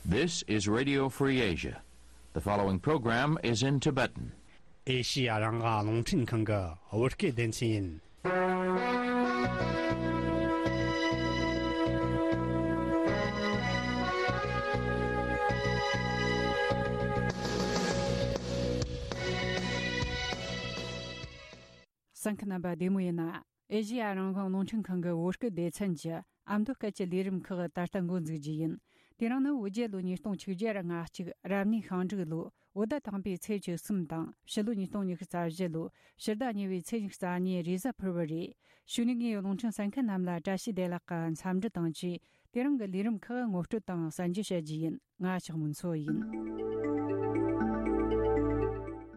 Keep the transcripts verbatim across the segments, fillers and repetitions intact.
This is Radio Free Asia. The following program is in Tibetan. ཨེ་ཤི་ཡ་རང་དབང་རླུང་འཕྲིན་ཁང་གི་བོད་སྐད་སྡེ་ཚན་ཡིན། གསན་མཁན་རྣམ་པ་བདེ་མོ་ཡིན་ན། ཨེ་ཤི་ཡ་རང་དབང་རླུང་འཕྲིན་ཁང་གི་བོད་སྐད་སྡེ་ཚན་གྱི་ཨ་མདོ་སྐད་ཀྱི་ལས་རིམ་ཁག་ད་ལྟ་འགོ་འཛུགས་རྒྱུ་ཡིན། དེ་རིང་ནི་བོད་རྒྱལ་ལོ་ཉིས་སྟོང་ཆིག་བརྒྱ་ང་གཅིག་རབ་གནས་ཤིང་འབྲུག་ལོ་བོད་ཟླ་དང་པོའི་ཚེས་བཅུ་གསུམ་དང་ཕྱི་ལོ་ཉིས་སྟོང་ཉི་ཤུ་རྩ་བཞི་ལོ་ཕྱི་ཟླ་གཉིས་པའི་ཚེས་ཉི་ཤུ་རྩ་གཉིས་རེས་གཟའ་ཕུར་བུ་རེད། གཞུག་ནས་ངས་རླུང་འཕྲིན་གསན་མཁན་རྣམས་ལ་བཀྲ་ཤིས་བདེ་ལེགས་ཀྱི་འཚམས་འདྲི་དང་བཅས། དེ་རིང་གི་ལས་རིམ་ཁག་ངོ་སྤྲོད་དང་གསན་རྒྱུ་བྱ་རྒྱུ་ཡིན། ང་ལྕགས་མོ་མཚོ་ཡིན།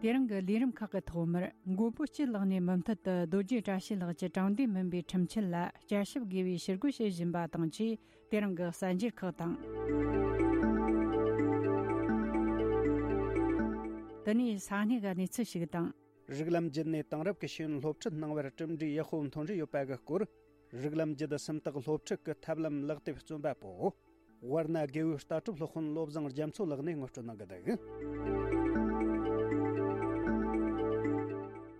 དེ་རིང་གི་ལས་རིམ་ཁག་གི་ཐོག་མར་མགོན་པོ་སྐྱིད་ལགས་ནས་མུ་མཐུད་དུ་རྡོ་རྗེ་བཀྲ་ཤིས་ལགས་ཀྱི་དྲང་བདེན་མིན་པའི་ཁྲིམས་ཆད་ལ་བསྐྱར་ཞིབ་དགོས་པའི་ཞུ་སྐུལ་བྱེད་བཞིན་པ་དང་བཅས། དེ་རིང་གི་གསར་འགྱུར་ཁག་དང་། དེ་ནས་ས་གནས་ཀྱི་གནས་ཚུལ་ཞིག་དང་། རིགས་ལམ་བརྒྱུད་ནས་དེང་རབས་ཀྱི་ཤེས་ཡོན་སློབ་ཁྲིད་གནང་བར་གྲུབ་འབྲས་ཡག་པོ་ཐོན་རེ་ཡོད་པ་གི་སྐོར། རིགས་ལམ་བརྒྱུད་སུམ་རྟགས་སློབ་ཁྲིད་ཀྱི་ཐབས་ལམ་ལག་དེབ་རྩོམ་པ་པོ། ཝར་ན་དགེ་འོས་ལྟ་གྲུབ་སློབ་དཔོན་བློ་བཟང་རྒྱ་མཚོ་ལགས་ནས་ངོ་སྤྲོད་གནང་གི་འདུག།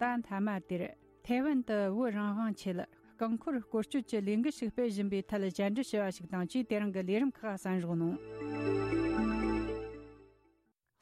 ད་མཐའ་མ་དེར་ཐའེ་ཝན་དུ་བོད་རང་དབང་ཆེད་རྐང་འཁོར་སྐོར་སྐྱོད་ཀྱི་ལས་འགུལ་ཞིག་སྤེལ་བཞིན་པའི་ཐད་བཅར་འདྲི་ཞུ་བ་ཞིག་དང་བཅས། དེ་རིང་གི་ལས་རིམ་ཁག་གསན་རོགས་གནང་།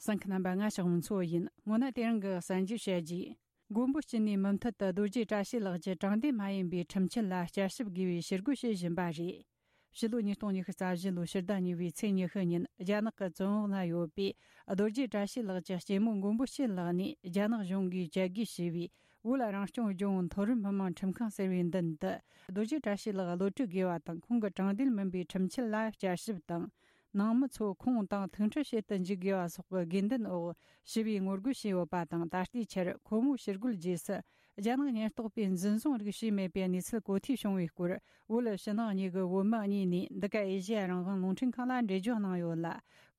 གསན་མཁན་རྣམ་པ། ང་ལྕགས་མོ་མཚོ་ཡིན། སྔོན་ན་དེ་རིང་གི་གསར་འགྱུར་བཤད་རྒྱུ། མགོན་པོ་སྐྱིད་ནས་མུ་མཐུད་དུ་རྡོ་རྗེ་བཀྲ་ཤིས་ལགས་ཀྱི་དྲང་བདེན་མ་ཡིན་པའི་ཁྲིམས་ཆད་ལ་བསྐྱར་ཞིབ་དགོས་པའི་ཞུ་སྐུལ་བྱེད་བཞིན་པ་རེད། ཕྱི་ལོ་ཉིས་སྟོང་ཉི་ཤུ་རྩ་བཞི་ལོའི་ཕྱི་ཟླ་གཉིས་པའི་ཚེས་ཉི་ཤུ་ཉིན་རྒྱ་ནག་གི་བཙོན་འོག་ན་ཡོད་པའི་རྡོ་རྗེ་བཀྲ་ཤིས་ལགས་ཀྱི་སྐྱེས་མོ་མགོན་པོ་སྐྱིད་ལགས་ནས་རྒྱ་ནག་གཞུང་གིས་བཅད་རྒོལ་བྱས་པའི་བོད་རང་སྐྱོང་ལྗོངས་མཐོ་རིམ་མི་དམངས་ཁྲིམས་ཁང་ཟེར་བའི་མདུན་དུ་རྡོ་རྗེ་བཀྲ་ཤིས་ལགས་གློད་གྲོལ་དགོས་པ་དང་། ཁོང་གི་དྲང་བདེན་མིན་པའི་ཁྲིམས་ཆད་ལ་བསྐྱར་ཞིབ་དང་། ནང་མི་ཚོ་ཁོང་དང་ཐུག་འཕྲད་བྱེད་དུ་འཇུག་དགོས་པ་སོགས་ཀྱི་དགོས་འདུན་འོག་ཞི་བའི་ངོ་རྒོལ་བྱས་ཡོད་པ་དང་། ད་ལྟའི་ཆར་ཁོ་མོའི་ཕྱིར་རྒོལ་རྗེས་སུ་རྒྱ་ནག་ཉེན་རྟོག་པས་འཛིན་བཟུང་རིགས་བྱས་མེད་པའི་གནས་ཚུལ་གོ་ཐོས་བྱུང་བའི་སྐོར། བོད་ཕྱི་ནང་གཉིས་ཀྱི་བོད་མི་གཉིས་ནས་འདི་ག་ཨེ་ཤེ་ཡ་རང་དབང་རླུང་འཕྲིན་ཁང་ལ་འགྲེལ་བརྗོད་གནང་ཡོད་ལ།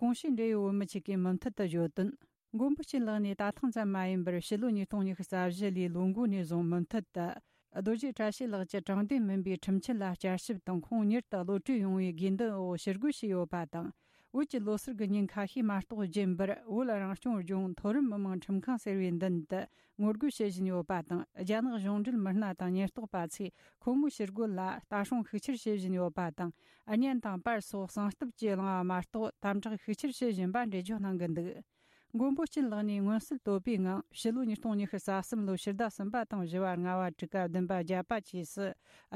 གོང་ཞུས་འབྲེལ་ཡོད་བོད་མི་ཆེད་ཀྱིས་མུ་མཐུད་དུ་བརྗོད་དོན། མགོན་པོ་སྐྱིད་ལགས་ནས་ད་ཐེངས་ཙམ་མ་ཡིན་པར་ཕྱི་ལོ་ཉིས་སྟོང་ཉི་ཤུ་རྩ་བཞི་ལོའི་ལོ་འགོ་ནས་བཟུང་མུ་མཐུད་དུ་རྡོ་རྗེ་བཀྲ་ཤིས་ལགས་ཀྱི་དྲང་བདེན་མིན་པའི་ཁྲིམས་ཆད་ལ་བསྐྱར་ཞིབ་དང་། ཁོང་མྱུར་དུ་གློད་གྲོལ་ཡོང་བའི་དགོས་འདུན་འོག་ཕྱིར་རྒོལ་བྱས་ཡོད་པ་དང་། བོད་ཀྱི་ལོ་གསར་གྱི་ཉིན་ཁ་ཤས་མ་གཏོགས་རྒྱུན་པར་བོད་རང་སྐྱོང་ལྗོངས་མཐོ་རིམ་མི་དམངས་ཁྲིམས་ཁང་ཟེར་བའི་མདུན་དུ་ངོ་རྒོལ་བྱེད་བཞིན་ཡོད་པ་དང་། རྒྱ་ནག་གཞུང་འབྲེལ་མི་སྣ་དང་ཉེན་རྟོག་པ་ཚོས་ཁོ་མོའི་ཕྱིར་རྒོལ་ལ་ལྟ་སྲུང་ཤུགས་ཆེར་བྱེད་བཞིན་ཡོད་པ་དང་། གཉེན་དང་པར་སོགས་གསང་སྟབས་ཀྱིས་བསླངས་པ་མ་གཏོགས་དམ་དྲག་ཤུགས་ཆེར་བྱེད་བཞིན་པ་འགྲེལ་བརྗོད་གནང་གི་འདུག། མགོན་པོ་སྐྱིད་ལགས་ནས་མངོན་གསལ་དོད་པའི་ངང་ཕྱི་ལོ་ཉིས་སྟོང་ཉི་ཤུ་རྩ་གསུམ་ལོའི་ཕྱི་ཟླ་གསུམ་པ་དང་བཞི་བ། ལྔ་བ། དྲུག་པ། བདུན་པ། བརྒྱད་པ་བཅས་སུ་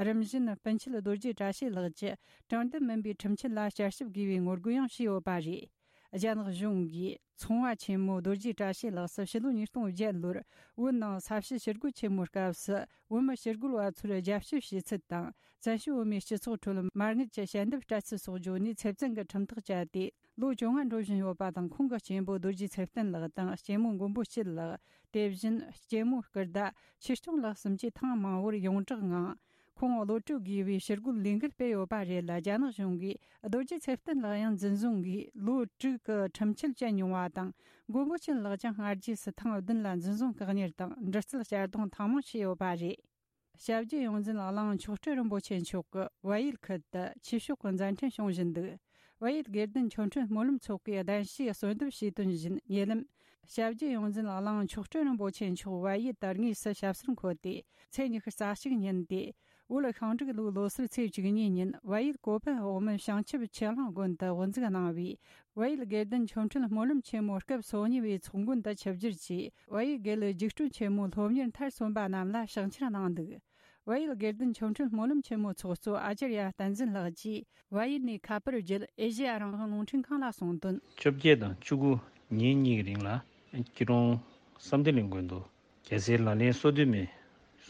རིམ་བཞིན་སྤུན་མཆེད་རྡོ་རྗེ་བཀྲ་ཤིས་ལགས་ཀྱི་དྲང་བདེན་མིན་པའི་ཁྲིམས་ཆད་ལ་བསྐྱར་ཞིབ་དགོས་པའི་ངོ་རྒོལ་ཡང་བྱས་ཡོད་པ་རེད། རྒྱ་ནག་གཞུང་གིས་ཚོང་བ་ཆེན་མོ་རྡོ་རྗེ་བཀྲ་ཤིས་ལགས་སུ་ཕྱི་ལོ་ཉིས་སྟོང་བརྒྱད་ལོར་བོད་ནང་ས་བྱི་ཞི་རྒོལ་ཆེན་མོའི་སྐབས་སུ་བོད་མི་ཞི་རྒོལ་བ་ཚོར་རྒྱབ་སྐྱོར་བྱས་ཚུལ་དང་། བཙན་བྱོལ་བོད་མིའི་སྤྱི་ཚོགས་ཁྲོད་མ་དངུལ་གྱི་ཞལ་འདེབས་སྤྲད་ཚུལ་སོགས་བརྗོད་ནས་ཚེ་བཙོན་གྱི་ཁྲིམས་ཐག་བཅད་དེ། ལོ་བཅོ་ལྔ་འགྲོ་བཞིན་ཡོད་པ་དང་། ཁོང་གི་གཅེན་པོ་རྡོ་རྗེ་ཚེ་བརྟན་ལགས་དང་སྐྱེས་མོ་མགོན་པོ་སྐྱིད་ལགས། དེ་བཞིན་སྐྱེས་མོ་སྐུ་ཟླ་ཆོས་སྐྱོང་ལགས་གསུམ་གྱིས་ཐེངས་མང་བོར་ཡོངས་གྲགས་ངང་ཁོང་གློད་གྲོལ་དགོས་པའི་ཕྱིར་རྒོལ་ལས་འགུལ་སྤེལ་ཡོད་པ་རེད་ལ། རྒྱ་ནག་གཞུང་གིས་རྡོ་རྗེ་ཚེ་བརྟན་ལགས་ཡང་འཛིན་བཟུང་གིས་ལོ་དྲུག་གི་ཁྲིམས་ཆད་བཅད་མྱོང་བ་དང་། མགོན་པོ་སྐྱིད་ལགས་ཀྱང་སྔ་རྗེས་སུ་ཐེངས་བདུན་ལ་འཛིན་བཟུང་བཀག་ཉར་དང་། འདྲི་རྩད་གཅར་རྡུང་ཐེངས་མང་བྱས་ཡོད་པ་རེད། སྐྱབས་རྗེ་ཡོངས་འཛིན་གླིང་མཆོག་སྤྲུལ་རིན་པོ་ཆེ་མཆོག་གིས་བལ་ཡུལ་ཁུལ་དུ་ཆོས་ཕྱོགས་ཀྱི་མཛད་འཕྲིན་བྱུང་བཞིན་འདུག། བལ་ཡུལ་དགེ་ལྡན་ཆོ་འཕྲུལ་སྨོན་ལམ་ཚོགས་པའི་གདན་ཞུས་གསོལ་འདེབས་ཞུས་དོན་བཞིན། ཉེ་ལམ་སྐྱབས་རྗེ་ཡོངས་འཛིན་གླིང་མཆོག་སྤྲུལ་རིན་པོ་ཆེ་མཆོག་བལ་ཡུལ་དུ་དངོས་སུ་ཞབས་སོར་འཁོད་དེ། ཚེས་ཉི་ཤུ་རྩ་གཅིག་ཉིན་ཏེ། བོད་ཤིང་འབྲུག་ལོའི་ལོ་སར་ཚེས་བཅུ་གཉིས་ཉིན་བལ་ཡུལ་ཀོ་པན་འོག་མིན་བྱང་ཆུབ་ཆོས་གླིང་དགོན་དུ་དབུ་འཛུགས་གནང་བའི་བལ་ཡུལ་དགེ་ལྡན་ཆོ་འཕྲུལ་སྨོན་ལམ་ཆེན་མོ་སྐབས་སོ་གཉིས་པའི་ཚོགས་མགོན་དུ་ཆིབས་བསྒྱུར་གྱིས། བལ་ཡུལ་དགེ་ལུགས་རྒྱུགས་སྤྲོད་ཆེན་མོའི་སློབ་གཉེར་མཐར་སོན་པ་རྣམས་ལ་ཕྱག་འཁྱེར་གནང་འདུག། བལ་ཡུལ་དགེ་ལྡན་ཆོ་འཕྲུལ་སྨོན་ལམ་ཆེན་མོའི་ཚོགས་གཙོ་ཨ་ཙརྱ་བསྟན་འཛིན་ལགས་ཀྱིས་བལ་ཡུལ་ནས་ཁ་པར་བརྒྱུད་ཨེ་ཤེ་ཡ་རང་དབང་རླུང་འཕྲིན་ཁང་ལ་གསུངས་དོན། བཅོ་བརྒྱད་དང་བཅུ་དགུ་ཉིན་གཉིས་ཀྱི་རིང་ལ་སྐྱིད་གྲོང་བསམ་གཏན་གླིང་དགོན་དུ་རྒྱལ་སྲས་ལག་ལེན་སོ་བདུན་མའི་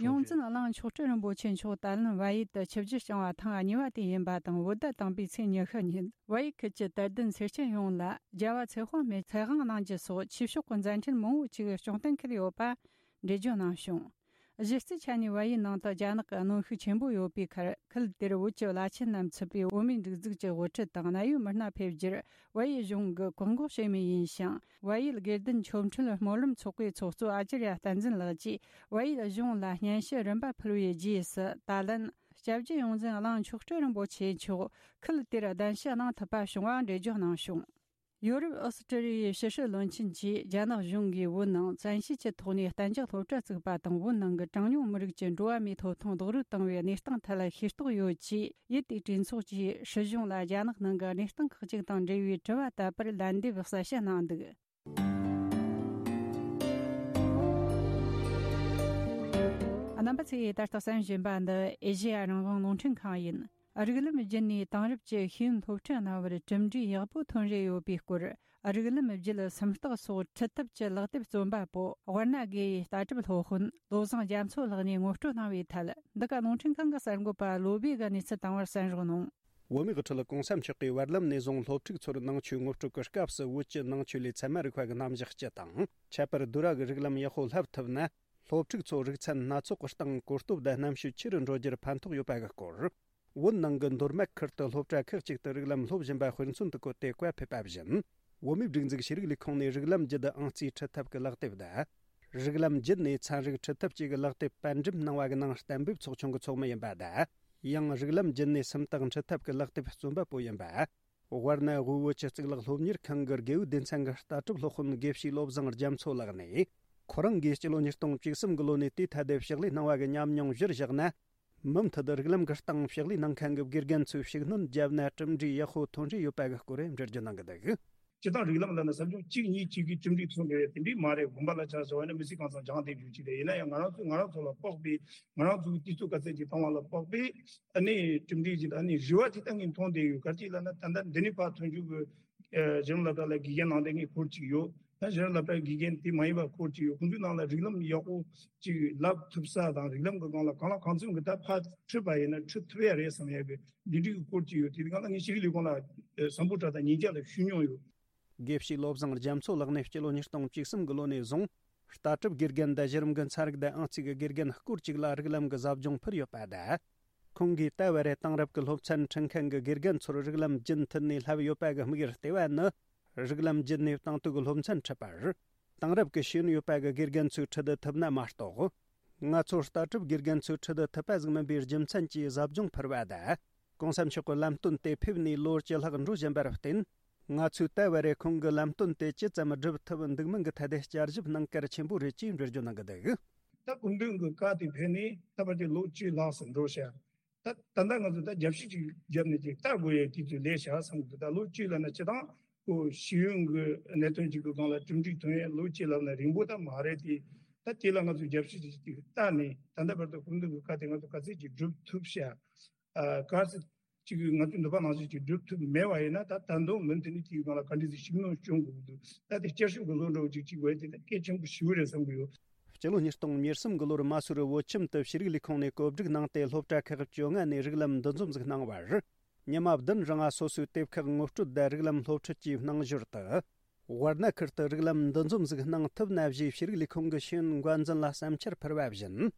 ཡོངས་འཛིན་གླིང་མཆོག་སྤྲུལ་རིན་པོ་ཆེ་མཆོག་ད་ལན་བལ་ཡུལ་དུ་ཆིབས་བསྒྱུར་བསྐྱངས་པ་ཐེངས་གཉིས་པ་དེ་ཡིན་པ་དང་། བོད་ཟླ་དང་པོའི་ཚེས་ཉི་ཤུ་ཉིན་བལ་ཡུལ་ཁུལ་གྱི་དད་ལྡན་སེར་སྐྱ་ཡོངས་ལ་རྒྱལ་བ་ཚེ་དཔག་མེད་ཚེ་དབང་གནང་རྒྱུ་སོགས་ཆོས་ཕྱོགས་ཀྱི་མཛད་འཕྲིན་མང་བོ་ཅིག་སྐྱོང་གཏན་འཁེལ་ཡོད་པ་འགྲེལ་བརྗོད་གནང་བྱུང་། གཞི་རྩའི་ཆ་ནས་བལ་ཡུལ་ནང་དུ་རྒྱ་ནག་གི་གནོན་ཤུགས་ཆེན་པོ་ཡོད་པའི་ཁར། ཁུལ་དེར་བོད་ཀྱི་བླ་ཆེན་རྣམས་ཚུད་པའི་བོད་མིའི་སྒྲིག་འཛུགས་ཀྱི་དབུ་ཁྲིད་དང་གནད་ཡོད་མི་སྣ་ཕེབས་རྒྱུར་བལ་ཡུལ་གཞུང་གིས་བཀག་འགོག་བྱས་མུས་ཡིན་ཞིང་། བལ་ཡུལ་དགེ་ལྡན་ཆོ་འཕྲུལ་སྨོན་ལམ་ཚོགས་པའི་ཚོགས་གཙོ་ཨ་ཙརྱ་བསྟན་འཛིན་ལགས་ཀྱིས་བལ་ཡུལ་གཞུང་ལ་སྙན་ཞུ་རིམ་པ་ཕུལ་བའི་རྗེས་སུ། ད་ལན་སྐྱབས་རྗེ་ཡོངས་འཛིན་གླིང་མཆོག་སྤྲུལ་རིན་པོ་ཆེ་མཆོག་ཁུལ་དེར་གདན་ཞུ་གནང་ཐུབ་པ་བྱུང་བ་འགྲེལ་བརྗོད་གནང་བྱུང་། ཡོ་རོབ་ཨོ་སི་ཀྲི་ལི་ཡའི་ཕྱི་སྲིད་བློན་ཆེན་གྱིས་རྒྱ་ནག་གཞུང་གིས་བོད་ནང་བཙན་ཤེད་ཀྱི་ཐོག་ནས་གཏན་འཇགས་སློབ་གྲྭ་བཙུགས་པ་དང་། བོད་ནང་གི་གྲངས་ཉུང་མི་རིགས་ཀྱི་འགྲོ་བ་མིའི་ཐོབ་ཐང་རྡོག་རོལ་བཏང་བའི་གནས་སྟངས་ཐད་ལ་ཤེས་རྟོགས་ཡོད་ཅེས། ཡུལ་དེའི་གྲོས་ཚོགས་ཀྱིས་སྲིད་གཞུང་ལ་རྒྱ་ནག་ནང་གི་གནས་སྟངས་ཁག་ཅིག་དང་འབྲེལ་བའི་དྲི་བ་དག་པར་ལན་འདེབས་གསལ་བཤད་གནང་འདུག། རྣམ་པ་ཚོས་ད་ལྟ་གསན་བཞིན་པ་འདི་ཨེ་ཤེ་ཡ་རང་དབང་རླུང་འཕྲིན་ཁང་ཡིན། རིགས་ལམ་བརྒྱུད་ནས་དེང་རབས་ཀྱི་ཤེས་ཡོན་སློབ་ཁྲིད་གནང་བར་གྲུབ་འབྲས་ཡག་པོ་ཐོན་རེ་ཡོད་པའི་སྐོར། རིགས་ལམ་བརྒྱུད་སུམ་རྟགས་སོགས་ཁྲིད་ཐབས་ཀྱི་ལག་དེབ་རྩོམ་པ་པོ་དབར་ན་དགེ་ཡི་ལྟ་གྲུབ་སློབ་དཔོན་བློ་བཟང་རྒྱ་མཚོ་ལགས་ནས་ངོ་སྤྲོད་གནང་བའི་ཐད། འདི་ག་རླུང་འཕྲིན་ཁང་གི་གསར་འགོད་པ་བློ་བྷེ་གིས་གནས་ཚུལ་བཏང་བར་གསན་རོགས་གནང་། བོད་མིའི་དབུ་ཁྲིད་གོང་ས་མཆོག་གིས་བར་ལམ་ནས་བཟུང་སློབ་ཕྲུག་ཚོར་ནང་ཆོས་ངོ་སྤྲོད་ཀྱི་སྐབས་སུ། བོད་ཀྱི་ནང་ཆོས་ལས་ཚད་མ་རིག་པ་གི་རྣམ་གཞག་སྤྱི་དང་། ཁྱད་པར་བསྡུར་བ་གི་རིགས་ལམ་ཡག་པོ་བསླབ་ཐུབ་ན། སློབ་ཕྲུག་ཚོ་རིག་ཚན་སྣ་ཚོགས་ཀྱི་སྟེང་གོ་སྟོབས་དང་རྣམ་དཔྱོད་ཆེ་རུ་འགྲོ་རྒྱུར་ཕན་ཐོགས་ཡོད་པ་གི་སྐོར། བོད་ནང་གི་མདོ་སྨད་ཁུལ་དུ་སློབ་གྲྭ་ཁག་ཅིག་ཏུ་རིགས་ལམ་སློབ་བཞིན་པ་དཔེ་མཚོན་དུ་བཀོད་དེ་བཀའ་ཕེབས་པ་བཞིན། བོད་མིའི་སྒྲིག་འཛུགས་ཤེས་རིག་ལས་ཁུངས་ནས་རིགས་ལམ་བརྒྱུད་ཨང་རྩིས་ཁྲིད་ཐབས་ཀྱི་ལག་དེབ་དང་། རིགས་ལམ་བརྒྱུད་ནས་ཚན་རིག་ཁྲིད་ཐབས་བཅས་ཀྱི་ལག་དེབ་པར་འགྲེམས་གནང་བ་གི་ནང་གཏན་འབེབས་ཚོགས་ཆུང་གི་ཚོགས་མི་ཡིན་པ་དང་། ཡང་རིགས་ལམ་བརྒྱུད་ནས་སུམ་རྟགས་ཁྲིད་ཐབས་ཀྱི་ལག་དེབ་རྩོམ་པ་པོ་ཡིན་པ། དབར་ན་དབུས་བོད་ཀྱི་གཙུག་ལག་སློབ་གཉེར་ཁང་གི་དགེ་འོས་སྡེ་ཚན་གྱི་ལྟ་གྲུབ་སློབ་དཔོན་དགེ་བཤེས་བློ་བཟང་རྒྱ་མཚོ་ལགས་ནས། ཁོ་རང་གིས་སྤྱི་ལོ་ཉིས་སྟོང་བཅུ་གསུམ་གྱི་ལོ་ནས་དེའི་ཐད་དུ་ཕྱག་ལས་གནང་བ་གི་ཉམས་མྱོང་གཞིར་བཞག་ན། མུ་མཐུད་རིགས་ལམ་གྱི་སྟེང་ཕྱག་ལས་གནང་མཁན་གྱི་དགེ་རྒན་ཚོས་ཤུགས་སྣོན་བརྒྱབ་ན་གྲུབ་འབྲས་ཡག་པོ་ཐོན་རེ་ཡོད་པ་གི་སྐོར་འགྲེལ་བརྗོད་གནང་གི་འདུག། སྤྱིར་བཏང་རིགས་ལམ་ལབ་ན་ཟབ་སྦྱོང་གཅིག་གཉིས་གཅིག་གིས་གྲུབ་འབྲས་ཐོན་དགོས་ཡ་དེ་འདྲས་མ་རེད། དགོན་པ་ལ་ཆ་བཞག་པ་ཡིན་ན་མི་ཚེ་གང་ཚང་སྦྱང་བསྡད་རྒྱུ་ཅིག་རེད། ཡིན་ན་ཡང་ང་རང་ཚོས་ང་རང་ཚོ་ལ་དཔག་པའི། ང་རང་ཚོའི་དུས་ཚོད་ག་ཚད་ཅིག་བཏང་བ་ལ་དཔག་པའི། ཨ་ནི་གྲུབ་འབྲས་ཅིག་ཨ་ནི་རེ་བ་དེ་ལྟ་ངན་མཐོང་བསྡད་ཡོད། ག་རེ་ཅིག་ལབ་ན་ད་ལྟ་འདི་ནས་ཕར་ཐོན་རྒྱུ་གི། ཨ་གཞི་རིམ་སློབ་གྲྭ་ལ་དགེ་རྒན་གནང་བསྡད་མཁན་སྐོར་ཅིག་ཡོད། ད་གཞི་རིམ་སློབ་གྲྭའི་དགེ་རྒན་དེ་མ་ཡིན་པ་སྐོར་ཅིག་ཡོད། ཁོང་ཚོའི་ནང་ལ་རིགས་ལམ་ཡག་པོ་ཅིག་བསླབ་ཐུབ་ས་དང་། རིགས་ལམ་གྱི་སྒང་ལ་གང་ལ་གང་འཚམ་གྱི་ད་ཕར་ཁྲིད་པ་ཡིན་ན་ཁྲིད་ཐུབ་ཡ་རེད་བསམ་ཡ་གི་འདི་འདྲའི་གི་སྐོར་ཅིག་ཡོད། དེ་གང་ལ་ངས་ཤེས་རིག་ལས་ཁུངས་ལ་ཨ་བཟང་པོ་དྲག་དང་ཉིན་རྒྱབ་ལ་ཞུ་མྱོང་ཡོད། དགེ་བཤེས་བློ་བཟང་རྒྱ་མཚོ་ལགས་ནས་སྤྱི་ལོ་ཉིས་སྟོང་བཅུ་གསུམ་གྱི་ལོ་ནས་བཟུང་། ལྟ་གྲུབ་དགེ་རྒན་དང་གཞི་རིམ་གྱི་ཚན་རིག་དང་ཨང་རྩིས་ཀྱི་དགེ་རྒན་སྐོར་ཅིག་ལ་རིགས་ལམ་གྱི་ཟབ་སྦྱོང་ཕུལ་ཡོད་པ་དང་། ཁོང་གིས་ད་བར་རེ་དེང་རབས་ཀྱི་སློབ་ཚན་ཁྲིད་མཁན་གྱི་དགེ་རྒན་ཚོར་རིགས་ལམ་རྒྱུན་མཐུད་ནས་བསླབས་ཡོད་པ་གི་དམིགས་ཡུལ་ལྟེ་བ་ནི། རིགས་ལམ་བརྒྱུད་ནས་དེང་དུས་ཀྱི་སློབ་ཚན་ཁྲིད་པར། དེང་རབས་ཀྱི་ཤེས་ཡོན་ཡོད་པ་གི་དགེ་རྒན་ཚོས་ཁྲིད་ཐུབ་ན་མ་གཏོགས། ང་ཚོ་ལྟ་གྲུབ་དགེ་རྒན་ཚོས་ཁྲིད་ཐུབ་པ་ཟིག་མིན་པའི་རྒྱུ་མཚན་གྱིས་ཟབ་སྦྱོང་ཕུལ་བ་དང་། གོང་ས་མཆོག་གི་ལམ་སྟོན་དེ་ཕེབས་ནས་ལོ་བཅུ་ལྷག་འགྲོ་བཞིན་པར་བརྟེན། ང་ཚོས་ད་བར་རེ་ཁོང་གི་ལམ་སྟོན་དེ་ཇི་ཙམ་སྒྲུབ་ཐུབ་འདུག་མིན་གྱི་ཐད་དེ་བསྐྱར་ཞིབ་གནང་གལ་ཆེན་པོ་རེད་ཅེས་འགྲེལ་བརྗོད་གནང་གི་འདུག། ད་སྐུ་མདུན་གྱི་བཀའ་དེ་ཕེབས་ནས་ད་བར་དུ་ལོ་བཅུ་ལྷག་ཙམ་འགྲོ་ཤག། ད་ད་ལྟ་ང་ཚོ་ད་རྒྱབ་བཤིག་ཅིག་བརྒྱབ་ནས་ཅིག་ལྟ་དགོས་ཡའི་དུས་ཚོད་སླེབས་ཤག་བསམ་གི་འདུག། ད་ལོ་བཅུ་ལབ་ན་སྤྱིར་བཏང་ཁོ་ཤེས་ཡོན་གྱི་གནད་དོན་ཅིག་གི་སྒང་ལ་གྲུབ་འབྲས་ཐོན་ཡས་ལོ་བཅུ་ལབ་ན་རིང་པོ་ད་མ་རེད་དེ། ད་དེ་ལ་ང་ཚོ་རྒྱབ་བཤིག་ཅིག་ཅིག་བལྟས་ནས་ད་ལྟ་བར་དུ་སྐུ་མདུན་གྱི་བཀའ་དེ་ང་ཚོ་ག་ཚད་ཅིག་སྒྲུབ་ཐུབ་ཤག། ཨ་གལ་སྲིད་ཅིག་ང་ཚོས་འདོད་པ་ནང་བཞིན་ཅིག་སྒྲུབ་ཐུབ་མེད་པ་ཡིན་ན། ད་ད་དུང་མུ་མཐུད་ནས་དེའི་སྒང་ལ་ག་འདྲ་ཞིག་ཤུགས་སྣོན་སྐྱོན་དགོས་ཀྱི་འདུག། ད་དེ་བསྐྱར་ཞིབ་ཀྱི་བཟོ་འདྲ་བོ་ཅིག་ཅིག་དགོས་དེ་ད་གལ་ཆེན་པོ་ཞེ་པོ་རེད་བསམ་གྱི་ཡོད། སྤྱི་ལོ་ཉིས་སྟོང་ཉེར་གསུམ་གྱི་ལོར་མ་སུ་རི་བོད་ཁྱིམ་དུ་ཤེས་རིག་ལས་ཁུངས་ནས་བཀོད་སྒྲིག་གནང་སྟེ། སློབ་གྲྭ་ཁག་བཅོ་ལྔ་ནས་རིགས་ལམ་འདུ་འཛོམས་ཟིག་གནང་བར། ཉི་མ་བདུན་རིང་ང་སོ་སོའི་དེབ་ཁག་ངོ་སྤྲོད་དང་རིགས་ལམ་སློབ་ཁྲིད་ཀྱི་རྣམ་འགྱུར་དུ། དབར་ན་ཁུལ་དུ་རིགས་ལམ་འདུ་འཛོམས་ཟིག་གནང་ཐུབ་ན་ཞེས་ཤེས་རིག་ལས་ཁུངས་ཀྱི་ཤེས་ཡོན་འགོ་འཛིན་ལ་བསམ་འཆར་ཕུལ་བ་བཞིན།